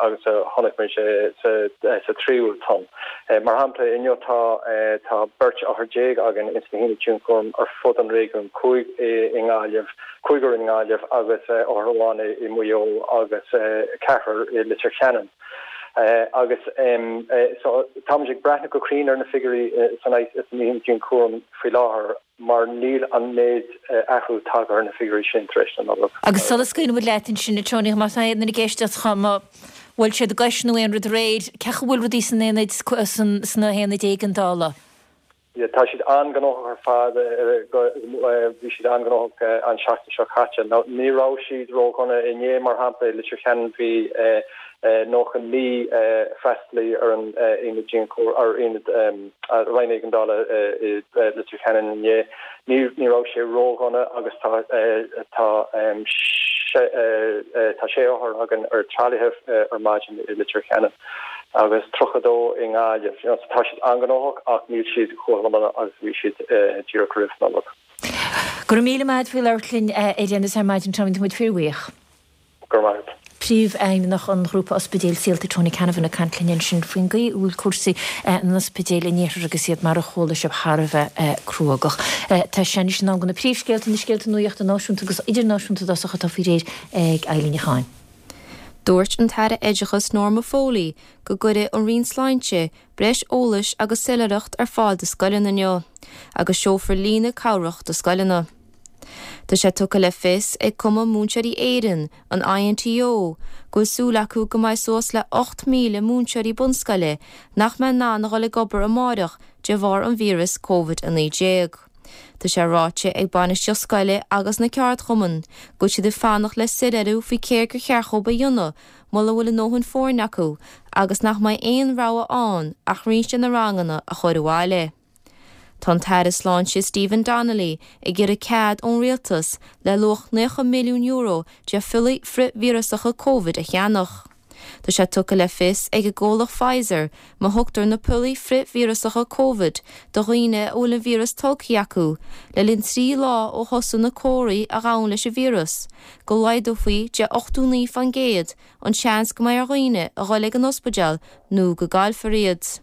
agus a chonaic muid sa tríú tonn. Mar shampla, inniu tá tá beirt othar déag againn ins na haonaid dianchúraim ar fud an réigiúin, cúig i nGaillimh, cúigear i nGaillimh agus othar amháin i Maigh Eo agus ceathrar i Leitir Ceanainn. Agus so táimid ag breathnú go cruinn ar na figiúirí san aonad dianchúraim faoi láthair mar níl an méid athrú tagtha ar na figiúirí sin tar éis na Nollag. Agus sula scaoileann muid leat ansin, a Tony, má tá aon duine ag éisteacht má bhuail siad a gcois nó aon rud aréir, cén chaoi a bhfuil rudaí san aonad, sna haonaid éigeandála? Tá siad an-ghnóthach ar fad, bhí siad an-ghnóthach an seachtain seo caite. Ní raibh siad ródhona inné, mar shampla, i Leitir Ceanainn bhí 99 freastalaí ar an aonad dianchúraim, ar aonad Roinn Éigeandála i Leitir Ceanainn inné. Ní raibh sé ródhona agus tá tá tá sé othar againn ar tralaithe ar maidin i Leitir Ceanainn. agus 32 i nGaillimh. You know, so tá siad an-ghnóthach ach níl siad chomh dona agus a bhí siad díreach roimh Nollaig. Go raibh míle maith agat faoi labhairt linn ar aon nós ar maidin Tony, tá muid fíorbhuíoch. Go raibh maith agat. Príomhfheidhmeannach an Ghrúpa Ospidéil Saolta Tony Canavan ag caint linn ansin faoin gcaoi a bhfuil cúrsaí in ospidéil an iarthair agus iad mar a chuala sibh thar a bheith cruógach. Tá sé anois in am do na príomhscéalta, na scéalta nuachta náisiúnta agus idirnáisiúnta i dtosach atá faoi réir ag Eilín Ní Chatháin. Dúirt an tAire Oideachais Norma Foley go gcuirfidh an Roinn Sláinte breis eolais agus soiléireacht ar fáil do scoileanna inniu agus seolfar líne cabhrach do scoileanna. Tá sé tugtha le fios ag Cumann Múinteoirí Éireann, an INTO, go bhfuil súil acu go mbeidh suas le 8,000 múinteoirí bunscoile nach mbeidh in ann a dhul ag obair amáireach de bharr an víreas Covid-19. Tá sé ráite ag bainistíocht scoile agus na ceardchumainn go bhfuil siad ag fanacht le soiléiriú faoi céard gur cheart dhóibh a dhéanamh mura bhfuil a ndóthain foirne acu agus nach mbeidh aon rogha ann ach roinnt de na ranganna a chur abhaile. Tá an tAire Sláinte Stephen Donnelly ag iarraidh cead ón Rialtas le luach €90 milliún de phiollaí frithvíreasacha Covid a cheannach. Tá sé tugtha le fios ag an gcomhlacht Pfizer má thugtar na piollaí frithvíreasacha Covid do dhaoine a bhfuil an víreas tolgtha acu le linn 3 lá ó thosaigh na comharthaí a ghabhann leis an víreas, go laghdófaí de 89% an seans go mbeidh ar dhaoine a dhul ag an ospidéal nó go gcaillfear iad.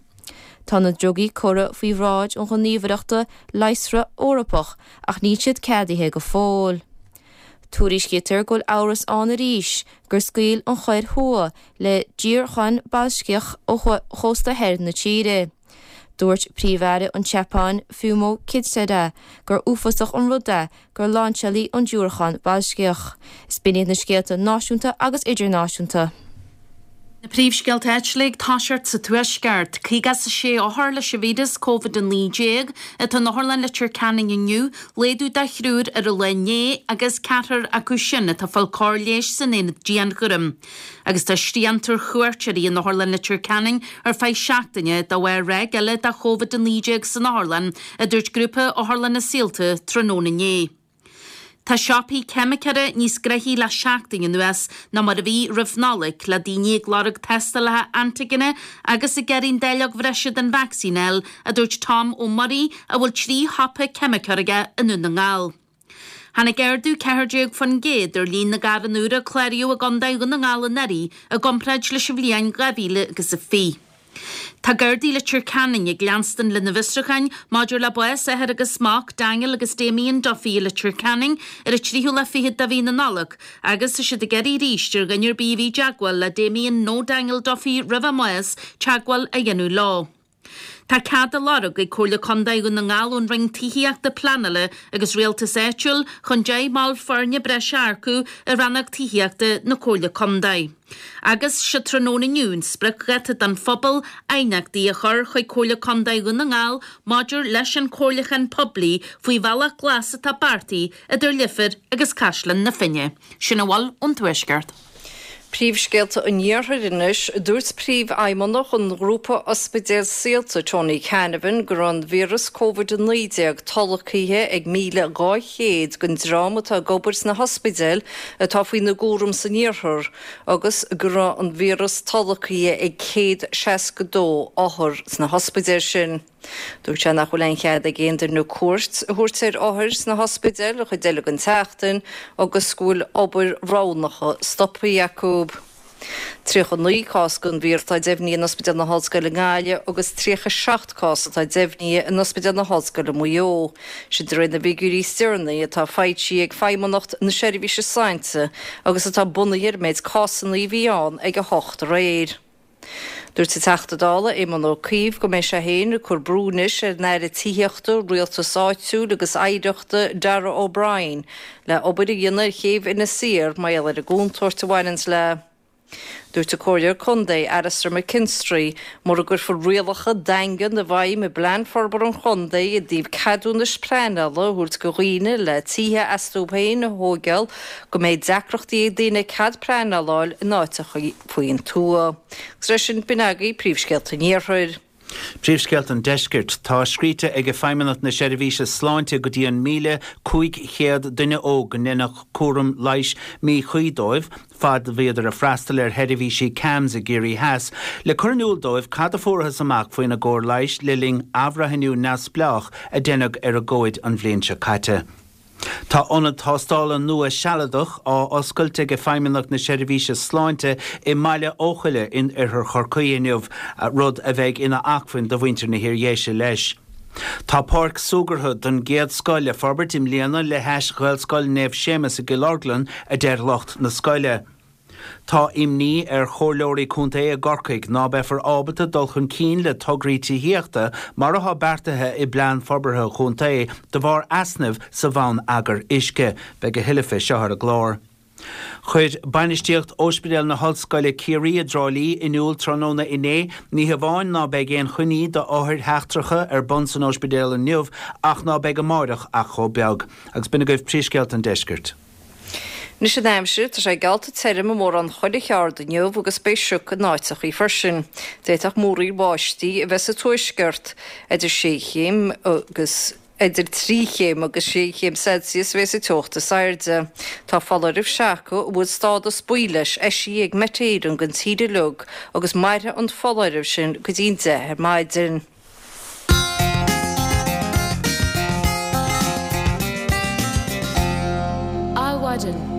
Tá na drugaí curtha faoi bhráid an Ghníomhaireachta Leigheasra Eorpach ach níl siad ceadaithe go fóill. Tuairiscítear go bhfuil amhras ann arís gur scaoil an Chóiré Thuaidh le diúracán balaisticiúil ó chósta thoir na tíre. Dúirt Príomh-Aire an tSeapáin, Fumio Kishida, gur uafásach an rud é gur lainseáladh an diúracán balaisticiúil. Is b'in iad na scéalta náisiúnta agus idirnáisiúnta. Na príomhscéalta áitiúla ag toiseacht sa Tuaisceart. 56 othar leis an víreas Covid-19 atá in Otharlann Leitir Ceanainn inniu, laghdú de thriúr ar an lá inné agus ceathrar acu sin atá ag fáil cóir leighis san aonad dianchúraim. Agus tá srianta ar chuairteoirí in Otharlann Leitir Ceanainn ar feadh seachtaine de bharr ráig eile de Covid-19 san otharlann, a dúirt Grúpa Otharlanna Saolta tráthnóna inné. Tá siopaí ceimiceora níos gnoithí le seachtain anuas ná mar a bhí roimh Nollaig, le daoine ag lorg tástálacha antaigine agus ag iarraidh an dáileog bhreise den vacsaín a fháil, a dúirt Tom Ó Muirí, a bhfuil 3 shiopa ceimiceora aige i nDún na nGall. Tháinig ardú 14% ar líon na gcarranna úr a cláraíodh i gContae Dhún na nGall anuraidh i gcomparáid leis an bhliain 2020. Tá Gardaí Leitir Ceanainn ag leanstan lena bhfiosrúcháin maidir le bás athar agus mac, Daniel agus Damien Duffy i Leitir Ceanainn ar an tríú lá fichead de mhí na Nollag agus tá siad ag iarraidh arís ar dhuine ar bith a bhí i dteagmháil le Damien nó Daniel Duffy roimh a mbás teagmháil a dhéanamh leo. Tá cead á lorg ag Comhairle Contae Dhún na nGall ón Roinn Tithíochta, Pleanála agus Rialtais Áitiúil chun 10 mball foirne breise a earcú i Rannóg Tithíochta na Comhairle Contae. Agus sé tráthnóna inniu an spriocdháta don phobal aighneachtaí a chur chuig Comhairle Contae Dhún na nGall maidir leis an chomhairliúchán poiblí faoi bhealach glas atá beartaithe idir Leifear agus Caisleán na Finne. Sin a bhfuil ón Tuaisceart. Príomhscéalta an Iarthair anois. Dúirt Príomhfheidhmeannach an ghrúpa ospidéal Saolta, Tony Canavan, go raibh an víreas Covid-19 tolgtha ag 1,200 den dream atá ag obair sna hospidéil atá faoina gcúram san iarthar agus go raibh an víreas tolgtha ag 162 othar sna hospidéil sin. Dúirt sé nach bhfuil aon chead ag aon duine cuairt a thabhairt ar othair sna hospidéil an chuid eile den tseachtain agus go bhfuil obair roghnacha stoptha acu. 39 cás den víreas atá deimhnithe in Ospidéal na hOllscoile i nGaillimh agus 37 cás atá deimhnithe in Ospidéal na hOllscoile Maigh Eo. Sin de réir na bhfigiúirí is deireanaí atá foilsithe ag Feidhmeannacht na Seirbhíse Sláinte agus atá bunaithe ar an méid cásanna a bhí ann ag 8 aréir. Dúirt an Teachta Dála Éamon Ó Cuív go mbeidh sé féin ag cur brú anois ar an Aire Tithíochta, Rialtais Áitiúil agus Oidhreachta Darragh O'Brien le obair a dhéanamh ar chéibh Inis Oírr mar gheall ar an gcontúirt a bhaineanns léi. Dúirt an Comhairleoir Contae Alastair McKinstry mura gcuirfear rialacha daingean i bhfeidhm i bPlean Forbartha an Chontae i dtaobh ceadúnais pleanála a thabhairt do dhaoine le tithe astu féin a thóigeáil go mbeidh deacrachtaí ag daoine cead pleanála a fháil in áiteacha faoin tuath. Agus leis sin, b'in agaibh príomhscéalta an Iarthair. Príomhscéalta an Deiscirt. Tá scríte ag Feidhmeannacht na Seirbhíse Sláinte go dtí an 1,500 duine óg go ndeineadh cúram leighis míchuí dóibh fad a bhíodar ag freastal ar sheirbhísí CAMHS i gCiarraí Theas le cur in iúl dóibh cad a fuarathas amach faoina gcóir leighis le linn athbhreithniú neamhspleách a deineadh ar a gcomhaid an bhliain seo caite. Tá ionad tástála nua sealadach á oscailt ag Feidhmeannacht na Seirbhíse Sláinte i mBaile Eochaille in oirthear Chorcaí inniu, rud a bheidh ina acmhainn do mhuintir na hIardhéise leis. Tá páirc súgartha den gcéad scoth le forbairt i mbliana le hais Ghaelscoil Naomh Séamus i gCill Orglan, a deir lucht na scoile. Tá imní ar chomhairleoirí contae i gCorcaigh ná beifear ábalta dul chun cinn le tograí tithíochta mar atá beartaithe i bPlean Forbartha an Chontae de bharr easnaimh sa bhonneagar uisce. Beidh a thuilleadh fé seo ar an gclár. Chuir bainistíocht Ospidéal na hOllscoile Ciarraí i dTrá Lí in iúl tráthnóna inné ní hamháin ná beidh aon choinní d'othair sheachtracha ar bun san ospidéal inniu ach ná beidh amáireach ach chomh beag. Agus b'in agaibh príomhscéalta an deiscirt. Anois an aimsir, tá sé geallta tirim i mórán chuile cheard inniu agus beidh sioc in áiteachaí freisin. D'fhéadfadh múraíl bháistí a bheith sa tuaisceart. Idir sé chéim agus idir 3 chéim agus 6 chéim Celsius a bheas an teocht is airde. Tá foláireamh seaca a bhfuil stádas buí leis eisithe ag Met Éireann don tír uilig agus mairfidh an foláireamh sin go dtí an 10 ar maidin. Adhmhaidin.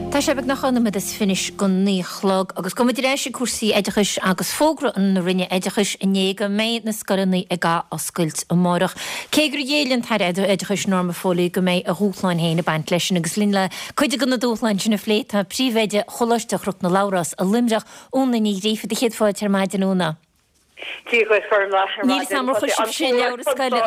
Tá sé beagnach dhá nóiméad is fiche go naoi a chlog agus gabhfaidh muid ar ais ag cúrsaí oideachais agus fógra na Roinne Oideachais inné go mbeidh na scoileanna ag ath-oscailt amárach. Cé gur ghéill an tAire Oideachais Norma Foley go mbeidh a dhúshláin féin ag baint leis sin agus linn le cuid de na dúshláin sin a phlé tá Príomhoide Choláiste Chnoc na Labhrás i Luimneach, Úna Ní Ghríofa. Do chéad fáilte ar maidin, Úna. Dia dhuit, Gormlaith, ar Níl 'fhios a'm ar chuir sibhse leabhra scoile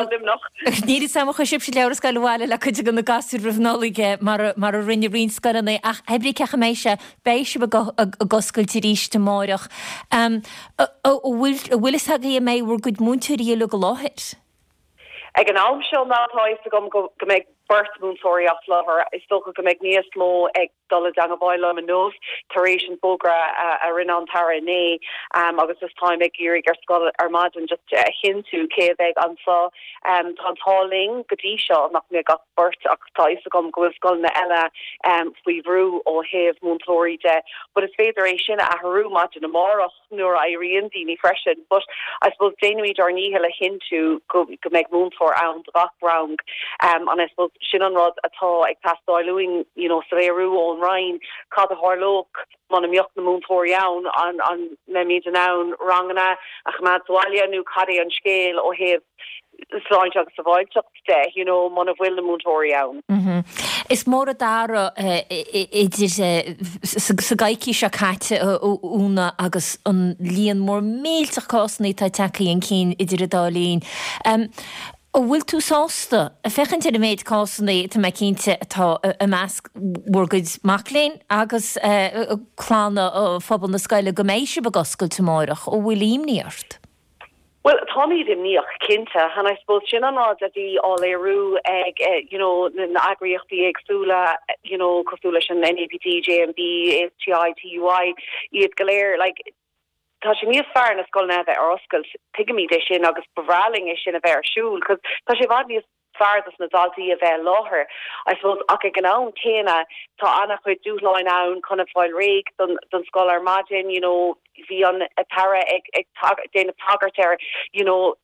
Níl 'fhios a'm ar chuir sibhse leabhra scoile abhaile le cuid de na gasúir roimh Nollaig mar mar a rinne roinnt scoileanna ach pé brí cén chaoi a mbeidh sé, beidh sibh ag ag oscailt arís amáireach. An bhfuil an bhfuil 'fhios agaibh an mbeidh bhur gcuid múinteoirí uilig i láthair? Ag an am seo now tá a fhios agam go go mbeidh beirt múinteoirí as láthair. Is dócha go mbeidh níos mó ag dul i dteangabháil liom inniu tar éis an fógra a rinne an tAire inné agus just táim ag iarraidh ar scoil ar maidin just a chinntiú cé a bheidh anseo. Tá an t-ádh linn go dtí seo nach mbeidh ach beirt ach tá a fhios agam go bhfuil scoileanna eile faoi bhrú ó thaobh múinteoirí de but is féidir é sin a athrú maidin amárach. nuair a éiríonn daoine freisin but I suppose déanaimid ár ndícheall a chinntiú go go mbeidh múinteoir ann do gach rang um and I suppose sin an rud atá ag teastáil uainn you know soiléiriú ón. ón Roinn cad a tharlódh muna mbeadh na múinteoirí ann, an an mbeimid in ann ranganna a choimeád sa bhaile nó cad é an scéal ó thaobh sláinte agus sábháilteacht de, you know, muna bhfuil na múinteoirí ann. Is mór an t-athrú idir sa gcoicís seo caite, a Úna, agus an líon mór millteach cásanna atá tagtha chun cinn idir an dá linn. An bhfuil tú sásta, ag féachaint ar an méid cásanna, tá mé cinnte, atá i measc bhur gcuid mac léinn agus clanna phobal na scoile, go mbeidh sibh ag oscailt amárach? An bhfuil imní ort? Bhuel, táimid imníoch, cinnte, and I suppose sin an rud a bhí á léiriú ag you know na eagraíochtaí éagsúla you know cosúil leis an NAPT, JMB, ASTI, TUI, iad go léir, like tá sé níos fearr na scoileanna a bheith ar oscailt, tuigimid é sin agus ba bhreá linn é sin a bheith ar siúl 'cause tá sé i bhfad níos fearr dos na daltaí a bheith i láthair, I suppose, ach ag an am céanna tá an-chuid dúshláin ann chun a fáil réidh don don scoil ar maidin, you know, bhí an tAire ag ag déanamh tagairt ar, you know,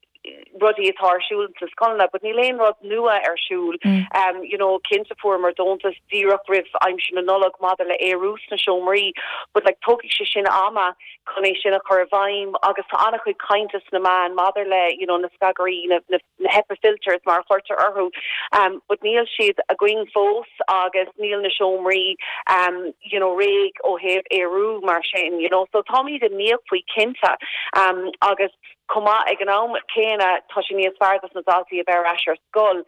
rudaí atá ar siúl sna scoileanna, but níl aon rud nua ar siúl. Um, you know, cinnte fuaireamar deontas díreach roimh aimsir na Nollag maidir le aerú sna seomraí, but like tógfaidh sé sin ama chun é sin a chur i bhfeidhm agus tá an-chuid cainte sna meáin maidir le, you know, na scagairí, na, na, na HEPA filters mar a chuirtear orthu but níl siad againn fós agus níl na seomraí you know réidh ó thaobh aerú mar sin you know so táimid imníoch faoi cinnte agus chomh maith ag an am céanna tá sé níos fearr dos na daltaí a bheith ar ais ar scoil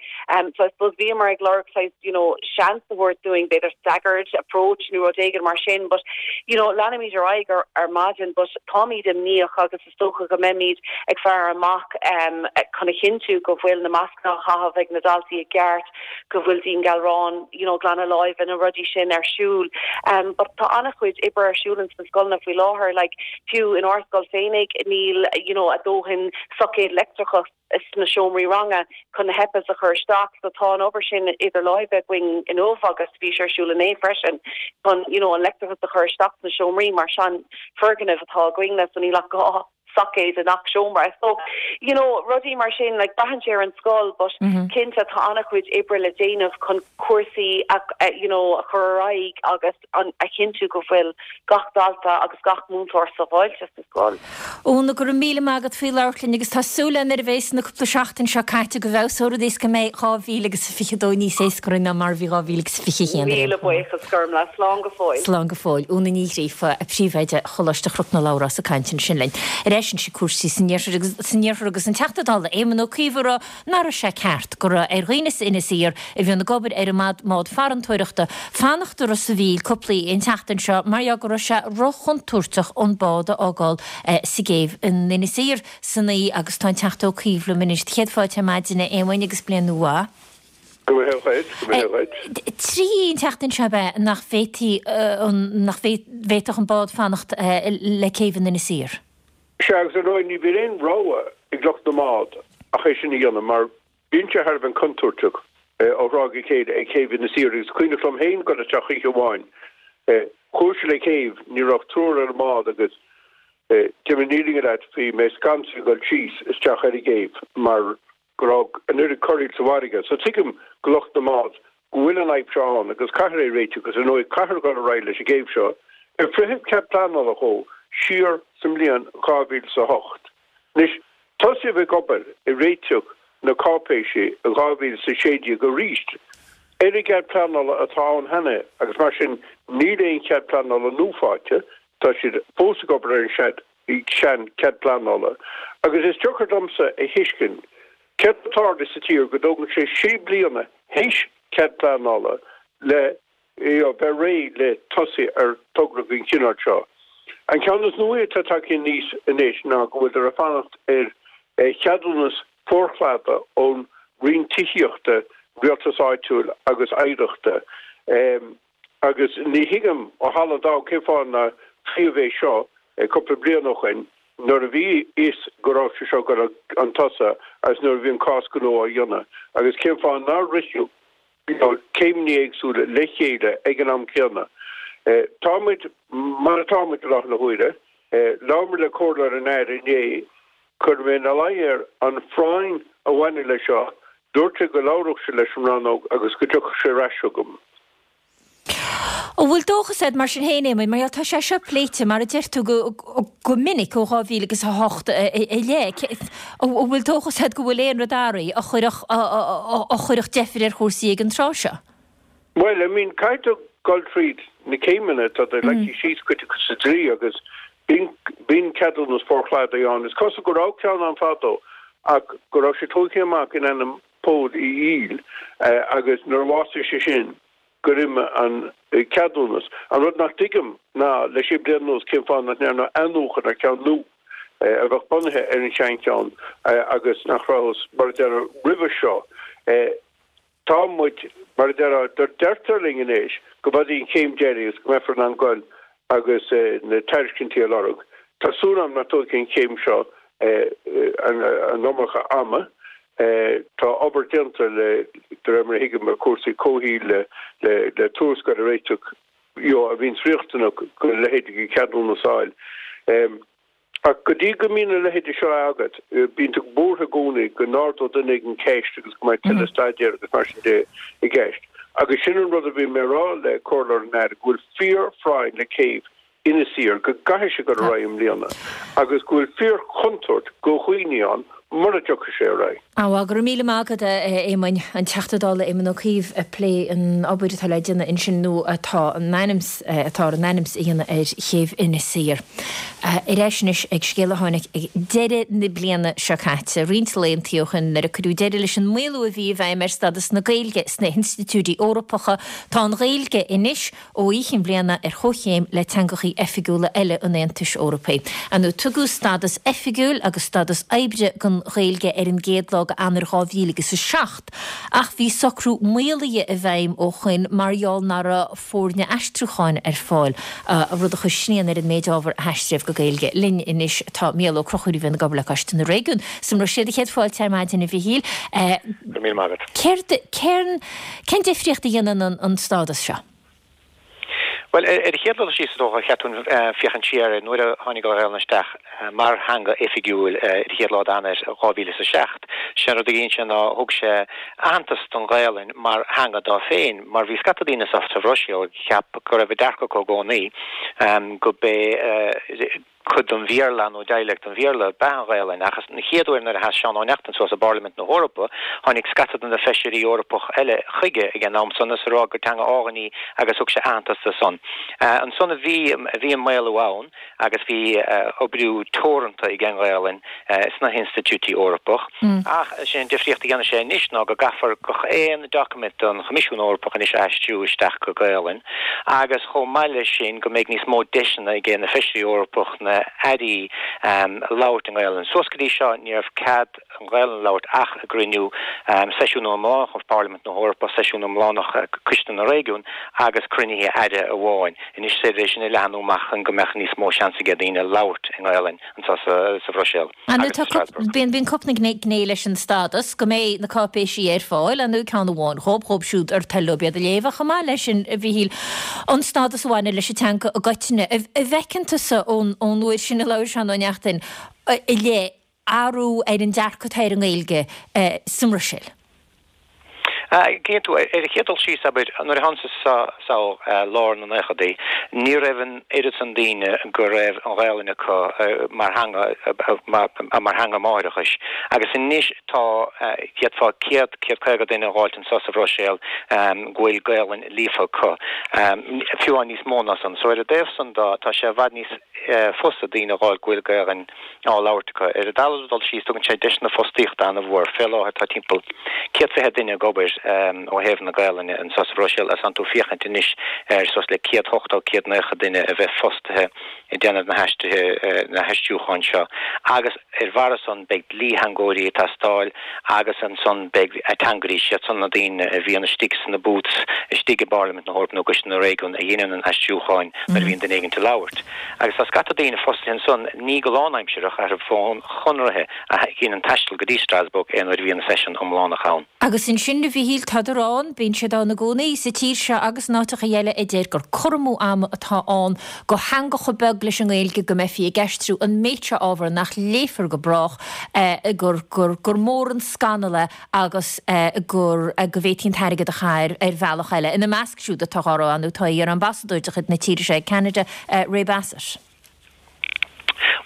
so I suppose bhíomar ag lorg saghas you know seans a thabhairt dúinn b'fhéidir staggered approach nó rud éigin mar sin but you know leanfaimid ar aghaidh ar ar maidin but táimid imníoch agus Is dócha go mbeimid ag faire amach chun a chinntiú go bhfuil na mascanna á chaitheamh ag na daltaí i gceart, go bhfuil dianghalrán, you know, glanadh láimhe, na rudaí sin ar siúl. But tá an-chuid oibre ar siúl ins na scoileanna faoi láthair, like fiú in ár scoil féinig níl, you know, a dóthain soicéad leictreachais sna seomraí ranga chun na HEPAs a chur isteach so tá an obair sin idir láimhe againn inniu agus bhí sé ar siúl inné freisin chun you know an leictreachas a chur isteach sna seomraí mar sean foirgneamh atá againne so níl ach 2 soicéad i ngach seomra so you know rudaí mar sin like braitheann sé ar an scoil but cinnte tá an-chuid oibre le déanamh chun cúrsaí a you know a chur ar aghaidh agus an a chinntiú go bhfuil gach dalta agus gach múinteoir sábháilte sa scoil. Úna, go raibh míle maith agat faoi labhairt linn agus tá súil agam nuair a bhéas na cúpla seachtain seo caite go bhfeabhsóidh rudaí is go mbeidh 2022 níos éasca orainn ná mar a bhí 2021 ar aon Míle buíochas Gormlaith. Slán go fóill. Slán go fóill. Úna Ní Ghríofa, Príomhoide Choláiste Chnoc na Labhrás ag caint ansin linn. Ar ais anois ag cúrsaí san iarthar agus san iarthar agus an Teachta Dála Éamon Ó Cuív ag rá nach raibh sé ceart go raibh ar dhaoine as Inis Oírr a bhíonn ag obair ar an mbád farantóireachta fanacht i Ros a' Mhíl cúpla oíche an tseachtain seo mar gheall go raibh sé ro-chontúirteach an bád a fhágáil sa gcéibh in Inis Oírr san oíche agus tá an Teachta Ó Cuív liom anois. Céad fáilte ar maidin a Éamoinn agus bliain nua mhaith. Go mbeidh sé dhuit, go mbeidh sé dhuit. Trí oíche an tseachtain seo ab ea nach bhféadfaí an nach bhféadfadh an bád fanacht le céibh in Inis Oírr? Sea, agus ar ndóigh ní bhíonn aon rogha ag lucht na mbád ach é sin a dhéanamh mar bíonn sé thar a bheith contúirteach ó thráth go chéile ag céibh Inis Oírr agus cuimhneach liom féin dul isteach oíche amháin. Chuaigh sé le céibh, ní raibh ach triúr ar an mbád agus déarfaidh mé an fhírinne leat, bhí mé scanraithe ag dul síos isteach ar an gcéibh mar go raibh an oiread corraíl sa bhfarraige. So tuigim go lucht na mbád go bhfuil an fhadhb seo ann agus caithfear é a réiteach agus ar ndóigh caithfear dul ar aghaidh leis an gcéibh seo ar fritheadh cead pleanála dhó siar sa mbliain 2008. Anois, tosaíodh ag obair ag réiteach na cáipéisí i 2016 arís ar an gcead pleanála atá ann cheana agus mar sin níl aon chead pleanála nua faighte, tá siad fós ag obair ar an sean cead pleanála agus is deacair domsa a thuiscint céard atá ag tarlú sa tír go dtógann sé sé bliana théis cead pleanála le bheith réidh le tosaí ar togra den chineál seo. An ceann is nuaí atá tagtha aníos anois ná go bhfuiltear ag fanacht ar cheadúnas forchladaigh ón Roinn Tithíochta, Rialtais Áitiúil agus Oidhreachta. Agus ní thuigim ó thalamh an domhain cén fáth nár frítheadh é seo cúpla bliain ó shoin nuair a bhí fhios go raibh sé seo ag dul chun tosaigh agus nuair a bhí an cás gnó á dhéanamh agus cén fáth nár ritheadh céimeanna éagsúla le chéile ag an am céanna. Tá muid mar atá muid i láthair na huaire. Labhair mé le comhairleoir an Aire inné. Chuir mé ina luí air an phráinn a bhaineann leis seo. Dúirt sé go labhródh sé leis an rannóg agus go dtiocfadh sé ar ais chugam. An bhfuil dóchas agat mar sin féin, Éamoinn, mar gheall tá sé seo pléite, mar a deir tú, go minic ó 2000 agus 8 i leith. An bhfuil dóchas agat go bhfuil aon rud athraithe a chuirfeadh a chuirfeadh deifir ar chúrsaí ag an tráth seo? Bhuel, I mean, caithfidh tú dul tríd na céimeanna atá leagtha síos cuid acu sa dlí agus bíonn bíonn ceadúnas forchladaigh ann. Is cosúil go raibh ceann ann fadó ach go raibh sé tógtha amach in ainm Pól Uí Fhoighil agus nuair a bhásaigh sé sin, gur imigh an ceadúnas. An rud nach dtuigim ná, le sé bliana anuas, cén fáth nach ndearnadh athnuachan ar cheann nua a bheadh bunaithe ar an seancheann agus nach rabhthas, mar a déarfá, roimhe seo. Tá muid, mar a déarfá, deirtear linn anois go b'í an chéim deiridh agus go mbeifear in ann goil agus na tairiscintí a lorg. Tá súil agam nach dtógfaidh an chéim seo an iomarca ama. Tá obair déanta le, de réir mar a thuigim, ar chúrsaí comhshaoil le le tuarascáil a réiteach you know a bhíonns riachtanach go leithéidí de cheadúnas a fháil. Ach go dtí go mbíonn a leithéide seo agat, bíonn tú buartha i gcónaí go n-ardódh duine éigin ceist agus go mbeidh tuilleadh staidéir agus mar sin de i gceist. Agus sin an rud a bhí mé a rá le comhairleoir an Aire, go bhfuil fíor-phráinn le céibh Inis Oírr, go gcaithfidh sé dul ar aghaidh i mbliana agus go bhfuil fíor-chontúirt go dhaoine ann mura dtiocfaidh sé ar aghaidh. Bhuel, go raibh míle maith agat, a Éamoinn. An Teachta Dála Éamon Ó Cuív ag plé an obair atá le déanamh ansin nó atá in ainm atá in ainm is a dhéanamh ar chéibh Inis Oírr. Ar ais anois ag scéal a tháinig ag deireadh na bliana seo caite, roinnt laethanta ó shin, nuair a cuireadh deireadh leis an maolú a bhí i bhfeidhm ar stádas na Gaeilge sna hinstitiúidí Eorpacha. Tá an Ghaeilge anois ó í chinn bliana ar chomhchéim le teangachaí oifigiúla eile an Aontais Eorpaigh. Ar ndóigh, tugadh stádas oifigiúil agus stádas oibre don Ghaeilge ar an gcéad lá d'Eanáir 2007, ach bhí socrú maolaithe i bhfeidhm ó shoin mar gheall nach raibh foirne aistriúcháin ar fáil, rud a chuir srian ar an méid ábhar a haistríodh go Gaeilge. Linn anois tá Mícheál Ó Conchúir a bhíonn ag obair le Coiste na Réigiún sa mBruiséil. Céad fáilte ar maidin, a Mhichíl. Go raibh míle maith agat. Céard, cén. Cén difríocht a dhéanann an stádas seo? Bhuel, ar an chéad dul síos, is dócha, cheart dúinn féachaint siar ar nuair a tháinig an Ghaelainn isteach mar theanga oifigiúil ar an chéad lá d'Eanáir 2007. Sé an rud a dhein sé ná thug sé aitheantas don Ghaelainn mar theanga dá féin, mar bhí scata daoine sa Bhruiséil a cheap go raibh an dearcadh acu i gcónaí go b'é Cuid den Bhéarla nó dialect den Bhéarla ab ea an Ghaelainn, ach an chéad uair nuair a sheas Seán Ó Neachtain suas i bParlaimint na hEorpa, tháinig scata de na feisirí Eorpach eile chuige ag an am san is a rá gur teanga álainn í agus thug sé aitheantas di san. Ansan a bhí bhí an maolú ann agus bhí oibriú teoranta ag an nGaelainn sna hinstitiúidí Eorpach. Ach is é an difríocht a dhéanfaidh sé anois ná go gcaithfear gach aon doiciméad don Choimisiún Eorpach anois a aistriú isteach go Gaelainn agus chomh maith leis sin go mbeidh níos mó deiseanna ag na Feisirí Eorpach, na hairí labhairt i nGaelainn. Suas go dtí seo ní raibh cead an Ghaelainn a labhairt ach i gcruinniú seisiún iomlánach Pharlaimint na hEorpa, seisiún iomlánach Coiste na Réigiún agus cruinnithe aire amháin. Anois is féidir é sin a leathnú amach chun go mbeadh níos mó seans ag daoine labhairt i nGaelainn anseo sa Bhruiséil. Ar ndóigh tá cúp, bíonn, bíonn cúpla gné, gné leis an stádas, go mbeidh na cáipéisí ar fáil, ar ndóigh ceann amháin dhóib, dhóib siúd ar toil leo iad a léamh, ach chomh maith leis sin, a Mhichíl, an stádas a bhaineann leis an teanga i gcoitinne. An bhfeiceann tusa ón, ón uair sin a labhair Seán Ó Neachtain i leith, athrú ar an dearcadh atá ar an nGaeilge sa mBruiséil? Cinnte, ar an chéad dul síos, abair, nuair a thánas anso lár na naochadaí, ní raibh an oiread san daoine go raibh an Ghaelainn acu mar theanga, mar theanga máithreachais. Agus anois tá, d'fhéadfá 100, 150 duine a dh'fháilt anso sa Bhruiséil go bhfuil Gaelainn líofa acu, fiú amháin níos mó ná san. So ar an dtaobh san de, tá sé i bhfad níos fusa daoine a dh'fháil go bhfuil Gaelainn á labhairt acu. Ar an dara dul síos, tugann sé deiseanna fostaíochta an-mhór. Fé láthair tá timpeall 120 duine ag obair ó thaobh na Gaelainne anseo sa Bhruiséil agus tánn tú féachaint anois ar suas le 180, 190 duine a bheith fostaithe ag déanamh na haistrithe, na haistriúcháin seo. Agus ar bharra san beidh dlítheangóirí ag teastáil agus ansan beidh ateangairí, siad san na daoine a bhíonn istigh sna booths istigh i bParlaimint na hEorpa nó i gCoiste na Réigiún a dheineann an aistriúcháin nuair a bhíonn duine éigint ag labhairt. Agus tá scata daoine fostaithe ansan, ní go lánaimsireach, ach ar bhonn chonraithe, a dheineann taisteal go dtí Strasbourg aon uair a bhíonn seisiún iomlánach ann. Agus ansin a Mhichíl. Mhíchíl, tádar ann, bíonn siad ann i gcónaí, sa tír seo agus in áiteacha eile a deir gur cur amú ama atá ann do theanga chomh beag leis an nGaeilge go mbeifí ag aistriú an méid seo ábhar nach léifear go brách, gur, gur, gur mór an scannal é agus gur, go bhféadfaí an t-airgead a chaitheamh ar bhealach eile. Ina measc siúd atá á rá nó tá iar-ambasadóir de chuid na tíre seo ag Ceanada, Ray Bassett.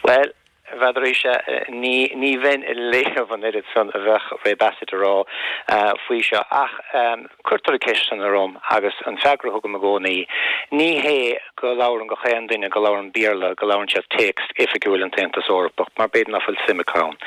Bhuel, n'fheadar-sa, ní, ní bheinn ag léamh an oiread san a bheadh Ray Bassett a rá faoi seo, ach cuirtear an ceist san orm agus an freagra a thugaim i gcónaí, ní hé go labhrann gach aon duine go labhrann Béarla, go labhrann siad téacs oifigiúil an tAontas Eorpach, mar b'fhéidir nach bhfuil suim acu ann.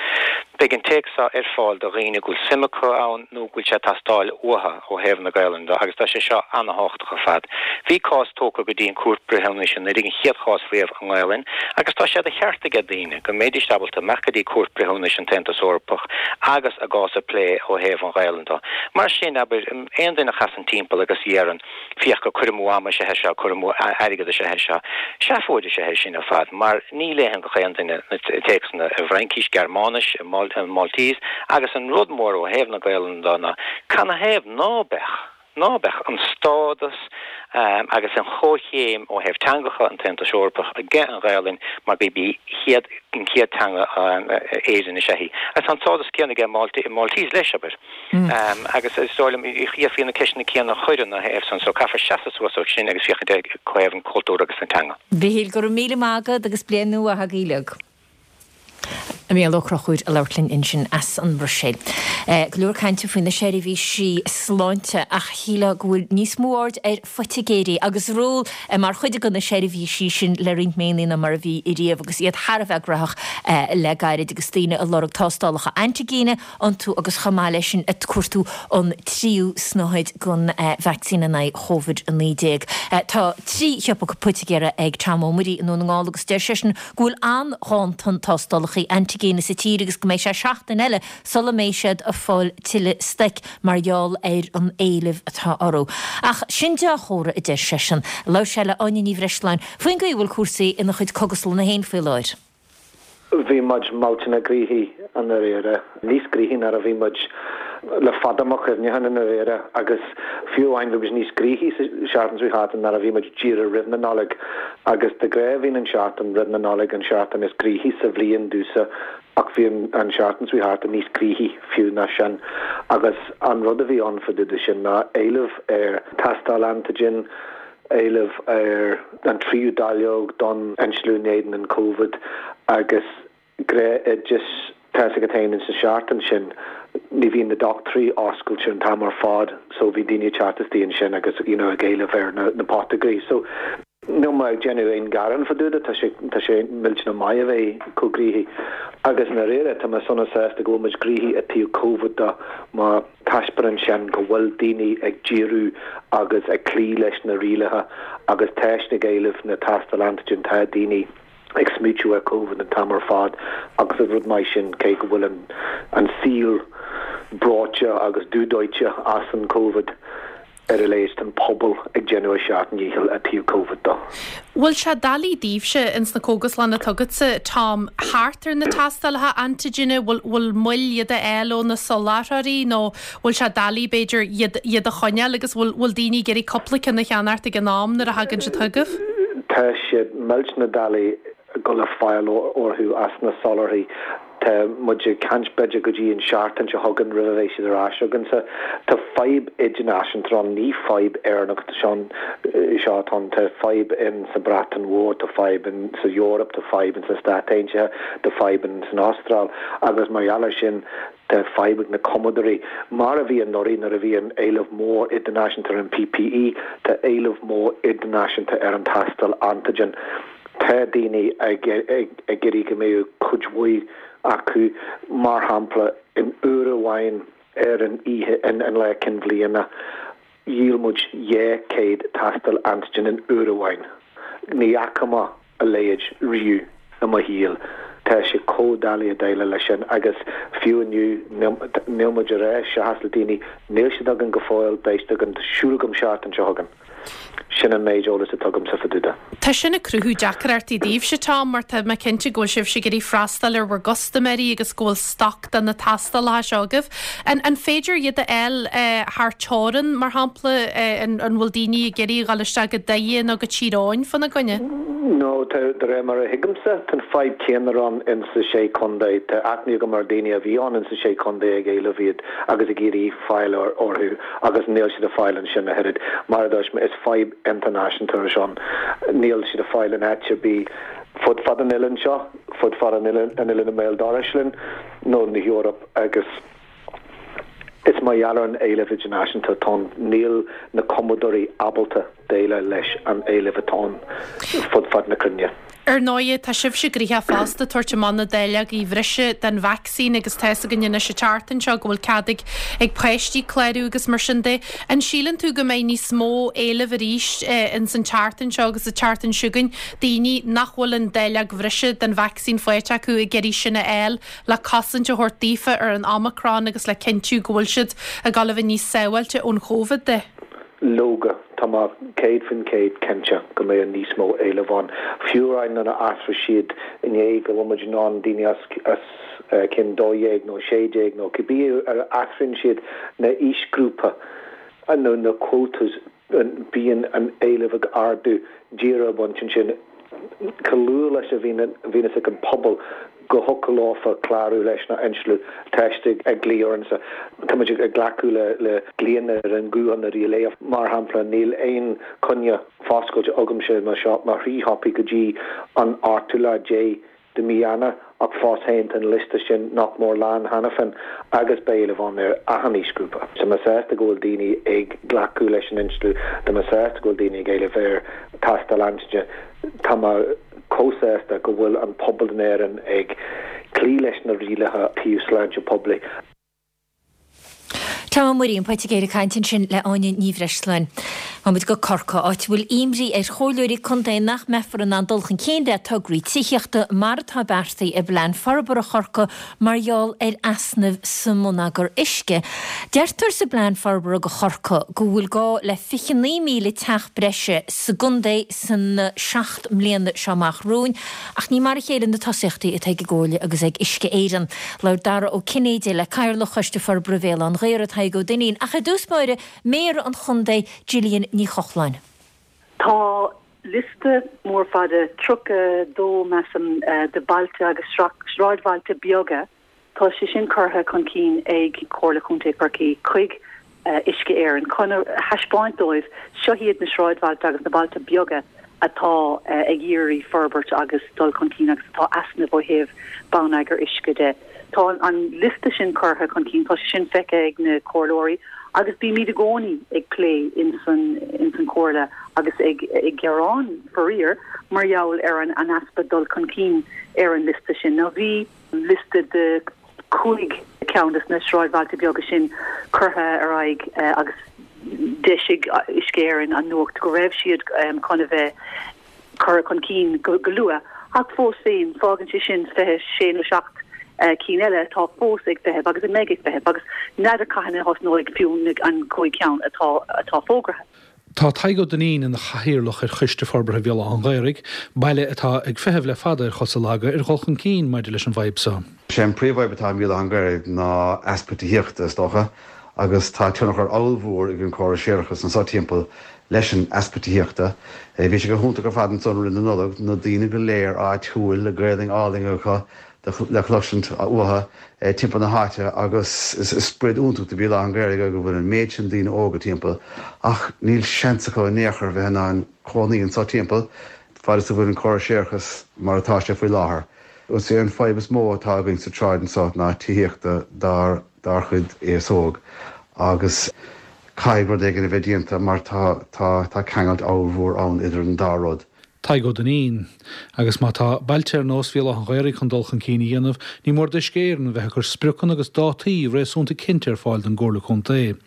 Beidh an téacs seo ar fáil do dhaoine go bhfuil suim acu ann nó go bhfuil sé ag teastáil uathu ó thaobh na Gaelainne de agus tá sé seo ana-thábhachtach ar fad. Bhí cás tógtha go dtí an Cúirt Breithiúnais anuraidh, an chéad chás riamh i nGaelainn, agus tá sé de cheart aige daoine go mbeidís ábalta imeacht go dtí Cúirt Breithiúnais an tAontas Eorpach agus a gcás a phlé ó thaobh an Ghaelainn de. Mar sin, abair, aon duine a chasann timpeall agus a dheireann, féach gur cur amú ama is ea é seo, cur amú airgead is ea é seo. Seafóid is ea é sin ar fad, mar ní léann gach aon duine na téacsanna i bhFraincis, Gearmáinis, i Maltese, agus an rud mór ó thaobh na Gaelainne de ná, canathaobh ná beadh? ná beadh an stádas agus an chomhchéim ó thaobh teangacha an tAontais Eorpach aige an Ghaelainn mar gurb í chéad an chéad teanga Éireann is ea í. Agus tá an stádas céanna aige Maltese leis, abair. Agus is dóigh liom d'fhéadfaí na ceisteanna céanna a chur ina thaobh san so caithfear seasamh suas ó sin agus féachaint ar thaobh an chultúir agus na teanga. Mhichíl, go raibh míle maith agat agus bliain nua mhaith agaibh uilig. Mícheál Ó Conchúir ag labhairt linn ansin as an mBruiséil. Go leor cainte faoi na seirbhísí sláinte ach shílfeá go bhfuil níos mó aird ar phoitigéirí agus ról mar chuid de na seirbhísí sin le roinnt míonna ná mar a bhí ariamh agus iad thar a bheith graitheach le gairid agus daoine ag lorg tástálacha antaigine iontu agus chomh maith leis sin ag cuartú an tríú snáthaid den vacsaín in aghaidh Covid-19. Tá 3 shiopa poitigéara ag Tom Ó Muirí i nDún na nGall agus deir seisean go bhfuil an-ghanntan tástálacha antaigine sa tír agus go mbeidh sé seachtain eile sula mbeidh siad ag fáil tuilleadh stoic mar gheall ar an éileamh atá orthu. Ach sin dea-chomhartha, a deir seisean. Labhair sé le Áine Ní Bhreisleáin faoin gcaoi a bhfuil cúrsaí ina chuid cógaslanna féin faoi láthair. Bhí muid millteanach gnoitheach i ndáiríre, níos gnoithí ná a bhí muid le fada mo chuimhneachán i ndáiríre agus fiú amháin bhí muid níos gnoithí sa seachtain seo thart ná a bhí muid díreach roimh na Nollag agus de ghnáth bhíonn an seachtain roimh na Nollag an seachtain is gnoithí sa bhliain domhsa ach bhí an seachtain seo thart níos gnoithí fiú ná sin agus an rud a bhí ann fá dtaobh de sin ná éileamh ar tástáil antigen, éileamh ar an tríú dáileog don insliú in éadan an Covid agus gnáthoideas. Tá 'fhios agat féin ins an seachtain sin ní bhíonn na dochtúirí oscailte an t-am ar fad so bhí daoine ag teacht istigh ansin agus you know ag éileamh ar na na poitigéirí so níl mé ag déanamh aon ghearán fá dtaobh de tá sé tá sé millteanach maith a bheith chomh gnoitheach agus i ndáiríre tá mé sona sásta go bhfuil muid gnoitheach i dtaobh Covid de mar Taispeánann sin go bhfuil daoine ag díriú agus ag cloí leis na rialacha agus tá siad ag éileamh na tástáil antigen, tá daoine ag smaoitiú ar Covid an t-am ar fad agus is rud maith sin cé go bhfuil an saol breoite agus dúdóite as an Covid. Ar a laghad tá an pobal ag déanamh a seacht ndícheall i dtaobh Covid de. Bhfuil sé doiligh daoibhse ins na cógaslanna atá agatsa, Tom, thart ar na tástálacha antaigine, bhfuil, bhfuil moill iad a fháil ó na soláthróirí nó bhfuil sé doiligh b'fhéidir iad, iad a choinneáil agus bhfuil, bhfuil daoine ag iarraidh cúpla ceann a cheannacht ag an am nuair a thagann siad chugaibh? Tá sé millteanach doiligh dul le fáil orthu as na soláthraithe. Tá muid ag caint b'fhéidir go dtí an seachtain seo chugainn roimh a bheidh siad ar ais againnse. Tá fadhb idirnáisiúnta ann, ní fadhb Éireannach seo atá ann. Tá fadhb in sa Bhreatain Mhór, tá fadhb in sa Eoraip, tá fadhb in sna Stáit Aontaithe, tá fadhb in san Astráil agus mar gheall ar sin tá fadhb ag na cumadóirí. Mar a bhí anuraidh nuair a bhí an éileamh mór idirnáisiúnta ar an PPE, tá éileamh mór idirnáisiúnta ar an tástáil antigen. Tá daoine ag iarraidh go mbeadh cuid mhaith acu, mar shampla, in uair amháin ar an oíche, an lá cinn bhliana, dhíol muid 200 tástáil antigen in uair amháin. Ní fhaca mé a leithéid riamh i mo shaol. Tá sé chomh doiligh a déileáil leis sin agus fiú inniu, níl muid ag rá seachas le daoine, níl siad againn go fóill, beidh siad againn, tá súil agam seachtain seo chugainn. Sin an méid eolais atá agamsa fá dtaobh de. Tá sin ag cruthú deacrachtaí daoibhse, Tom, mar tá mé cinnte go bhfuil sibhse ag iarraidh freastal ar bhur gcustaiméirí agus go bhfuil stoc de na tástálacha seo agaibh. An an féidir iad a fháil thar teorainn, mar shampla? An an bhfuil daoine ag iarraidh a dhul isteach go Doire nó go Tír Eoghain fána gcoinne? No, tá, de réir mar a thuigimse, tá an fadhb céanna ann ins na Sé Chontae. Tá aithne agam ar daoine a bhí ann ins na Sé Chontae ag éileamh iad agus ag iarraidh fáil orthu agus níl siad ar fáil ansin a thuilleadh. Mar a dúirt mé, is fadhb idirnáisiúnta é seo. Níl siad ar fáil in áit ar bith fud fad an oileáin seo, fud fad an oileáin i mbéal dorais linn nó na hEorpa agus is mar gheall ar an éileamh idirnáisiúnta atá ann, níl na cumadóirí ábalta déileáil leis an éileamh atá ann fud fad na cruinne. Ar ndóighe, tá sibhse gnoitheach fosta ag tabhairt amach na dáileogaí bhreise den vacsaín agus tá fhios againn anois an tseachtain seo go bhfuil cead ag ag páistí clárú agus mar sin de. An síleann tú go mbeidh níos mó éilimh arís ins an tseachtain seo agus an tseachtain seo chugainn, daoine nach bhfuil an dáileog bhreise den vacsaín faighte acu ag iarraidh sin a fháil le cosaint a thabhairt daofa ar an Omicron agus le cinntiú go bhfuil siad ag dul a bheith níos sábháilte ón Chóivid de? Leoga, tá mé 100% cinnte go mbeidh níos mó éileamh ann. Fiú amháin nuair a athraigh siad inné go bhfuil muid in ann daoine os cionn 12 nó 16 nó cibé ar a athraíonn siad na aoisghrúpa nó na quotas bíonn an éileamh ag ardú díreach ón bpointe sin. Chomh luath leis a bhíonn ag an pobal go thiocfadh leofa clárú leis na insliú, tá siad ag glaoch orainn. Tá muid ag glacadh le glaonna ar an nguthán ar léamh. Mar shampla, níl aon coinne foscailte agamsa i mo shop, mo thrí shiopaí go dtí an ochtú lá déag de mhí Eanáir ach fós féin tá an liosta sin nach mór lán cheana féin agus beidh éileamh ann ar achan aoisghrúpa. Tá mé sásta go bhfuil daoine ag glacadh leis an insliú, tá mé sásta go bhfuil daoine ag éileamh ar tástáil antaigine, tá mé chomh sásta go bhfuil an pobal in Éirinn ag cloí leis na rialacha taobh sláinte poiblí. Tom Ó Muirí, an Poitigéir ag caint ansin le Áine Ní Bhreisleáin. Gabhfaidh muid go Corcaigh, áit a bhfuil imní ar chomhairleoirí contae nach mbeifear in ann dul chun cinn le tograí tithíochta mar atá beartaithe i bPlean Forbartha Chorcaí mar gheall ar easnaimh sa mbonneagar uisce. Deirtear sa bPlean Forbartha do Chorcaigh go bhfuil gá le 29,000 teach breise sa gcontae sna 7 mbliana seo amach romhainn ach ní mar a chéile na tosaíochtaí atá ag an gComhairle agus ag Uisce Éireann. Labhair Dara Ó Cinnéide le Cathaoirleach Choiste Forbartha Bhéal Átha an Ghaorthaidh, Tadhg Ó Duinnín, ach i dtús báire, Méara an Chontae, Gillian Ní Chochláin. Tá liosta mór fada, 32 measaim, de bhailte agus sráidbhailte beaga Tá sé sin curtha chun cinn ag Comhairle Chontae Chorcaí chuig Uisce Éireann chun a thaispeáint dóibh, seo iad na sráidbhailte agus na bailte beaga atá ag iarraidh forbairt agus dul chun cinn agus atá easnamh ó thaobh bonneagar uisce de. Tá an liosta sin curtha chun cinn, tá sé sin feicthe ag na comhairleoirí agus bímid i gcónaí ag plé ins an chomhairle agus ag gearán, faraor, mar gheall ar an easpa dul chun cinn ar an liosta sin. Now bhí. liosta de chúig cheann de na sráidbhailte beaga sin curtha ar aghaidh agus d'eisigh Uisce Éireann an nuacht go raibh siad chun a bheith curtha chun cinn go luath. Ach fós féin, fágann sé sin 26 nó 7 cinn eile atá fós ag feitheamh agus a mbeidh ag feitheamh agus n'fheadar cathain a thosnóidh fiú an chúig cheann atá fógraithe. Tá Tadhg Ó Duinnín ina chathaoirleach ar Choiste Forbartha Bhéal Átha an Ghaorthaidh, baile atá ag feitheamh le fada ar chosa laga ar dhul chun cinn maidir leis an bhfadhb seo. Sé an príomhfhadhb atá i mBéal Átha an Ghaorthaidh ná easpa tithíochta, is dócha, agus tá tionchar ollmhór ag an córas séarachais anso timpeall leis an easpa tithíochta. Bhí sé go hiontach ar fad ansan roimh na Nollag, na daoine go léir áitiúil, le Gaelainn álainn acu, le cloisint uathu timpeall na háite agus is sprid iontach do Bhéal Átha an Ghaorthaidh go bhfuil an méid sin daoine óga timpeall ach níl seans acu in aon chor bheith in ann cónaí anso timpeall fad is a bhfuil an córas séarachais mar atá sé faoi láthair. Is é an fadhb is mó atá againn sa tsráid anso ná tithíochta dár dár chuid aos óg agus caithfidh rud éigin a bheith déanta mar tá tá tá ceangailt ollmhór ann idir an dá rud. Tadhg Ó Duinnín. Agus má tá bailte ar nós Bhéal Átha an Ghaorthaidh chun dul chun cinn a dhéanamh, ní mór d'Uisce Éireann a bheith ag cur spriocanna agus dátaí réasúnta cinnte ar fáil don gComhairle Contae.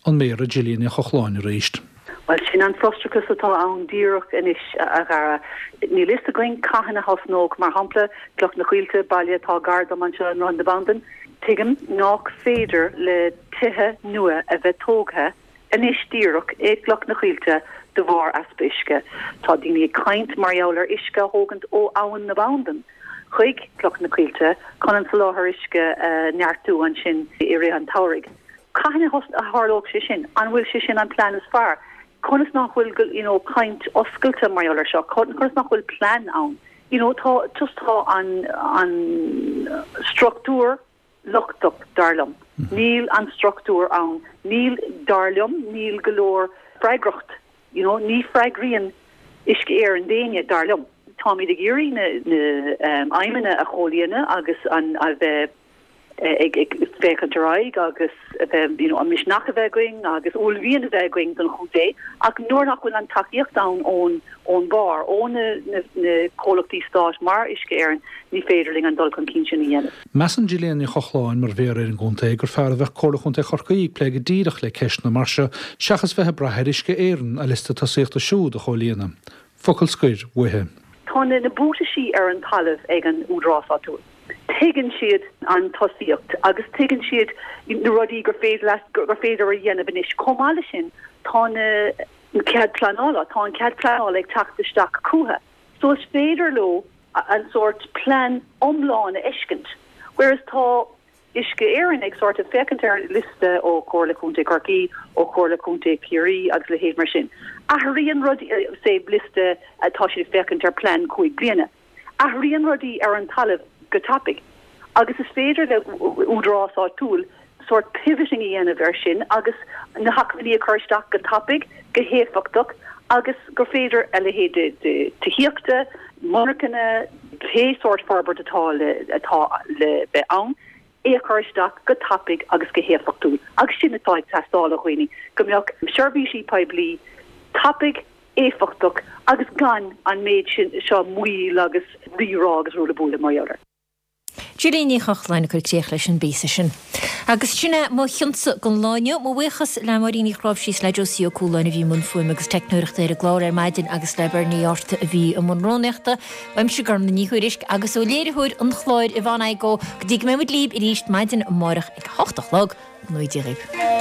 An Méara Gillian Ní Chochláin arís. Bhuel, sin an frustrachas atá ann díreach anois, a Dhara. Níl fhios againn cathain a thosnódh, mar shampla, Cloich na Coillte, baile atá gar dom anseo i nDroichead na Bandan. Tuigim nách féidir le tithe nua a bheith tógtha. anois díreach i gCloch na Coillte de bharr easpa uisce. Tá daoine ag caint mar gheall ar uisce a thógaint ó Abhainn na Bandan chuig Cloch na Coillte chun an soláthar uisce a neartú ansin i rith an tsamhraidh. Cathain a tharlódh sé sin? An bhfuil sé sin an plean is fearr? Conas nach bhfuil you know caint oscailte mar gheall ar seo? Conas nach bhfuil plean ann? You know tá just tá an an struchtúr lochtach, dar liom. Níl an struchtúr ann. Níl, dar liom, níl go leor freagracht, you know, ní freagraíonn Uisce Éireann d'éinne, dar liom. Táimid ag iarraidh na na aidhmeanna a chomhlíonadh agus an a bheith ag ag féachaint ar aghaidh agus a bheith, you know, an misneach a bheith againn agus uaillmhian a bheith againn don chontae ach nuair nach bhfuil an tacaíocht ann ón ón mbarr, ó na comhlachtaí stáit mar Uisce Éireann, ní féidir linn an dul chun cinn sin a dhéanamh. Measann Gillian Ní Chochláin, mar Mhéara ar an gcontae, gur fearr a bheadh Comhairle Chontae Chorcaí ag plé go díreach le ceisteanna mar seo seachas bheith ag brath ar Uisce Éireann a liosta tosaíochta siúd a chomhlíonadh. Focal scoir uaithi. Tá na buataisí ar an talamh ag an údarás áitiúil. Tuigeann siad an tosaíocht agus tuigeann siad na rudaí gur féidir gur féidir a dhéanamh anois. Chomh maith leis sin, tá na. an cead pleanála, tá an cead pleanála ag teacht isteach chucu so is féidir leo an sórt plean iomlán a fheiscint whereas tá Uisce Éireann ag sort of féachaint ar liosta ó Chomhairle Contae Chorcaí, ó Chomhairle Contae Chiarraí agus a leithéid mar sin. Athraíonn rudaí, say liosta tá siad ag féachaint ar plean 5 bliana. Athraíonn rudaí ar an talamh go tapaidh agus is féidir le údarás áitiúil sórt pivoting a dhéanamh air sin agus na hacmhainní a chur isteach go tapaidh, go héifeachtach agus gur féidir a leithéid de tithíochta, monarchana, pé sórt forbairt atá le atá le bheith ann, é a chur isteach go tapaidh agus go héifeachtúil. Agus sin atá ag teastáil ó dhaoine, go mbeadh seirbhísí poiblí tapaidh, éifeachtach agus gan an méid sin seo moill agus rírá agus ruaille buaille mar gheall air. Gillian Ní Chochláin ag cur críoch leis an bpíosa sin. Agus sin é mo chionsa don lá inniu. Mo bhuíochas le Máirín Uí Chnáimhsí is le Josie Ó Cualáin a bhí i mbun fuaime agus teicneoireachta ar an gclár ar maidin agus le Bernie Art a bhí i mbun rúnaíochta. Uaimse Gormlaith Ní Thuairisg agus ó léiritheoir an chláir Yvonne Igoe go dtí go mbeidh muid libh arís maidin amárach ag a hocht a chlog. Go ngnóthaí Dia dhaoibh.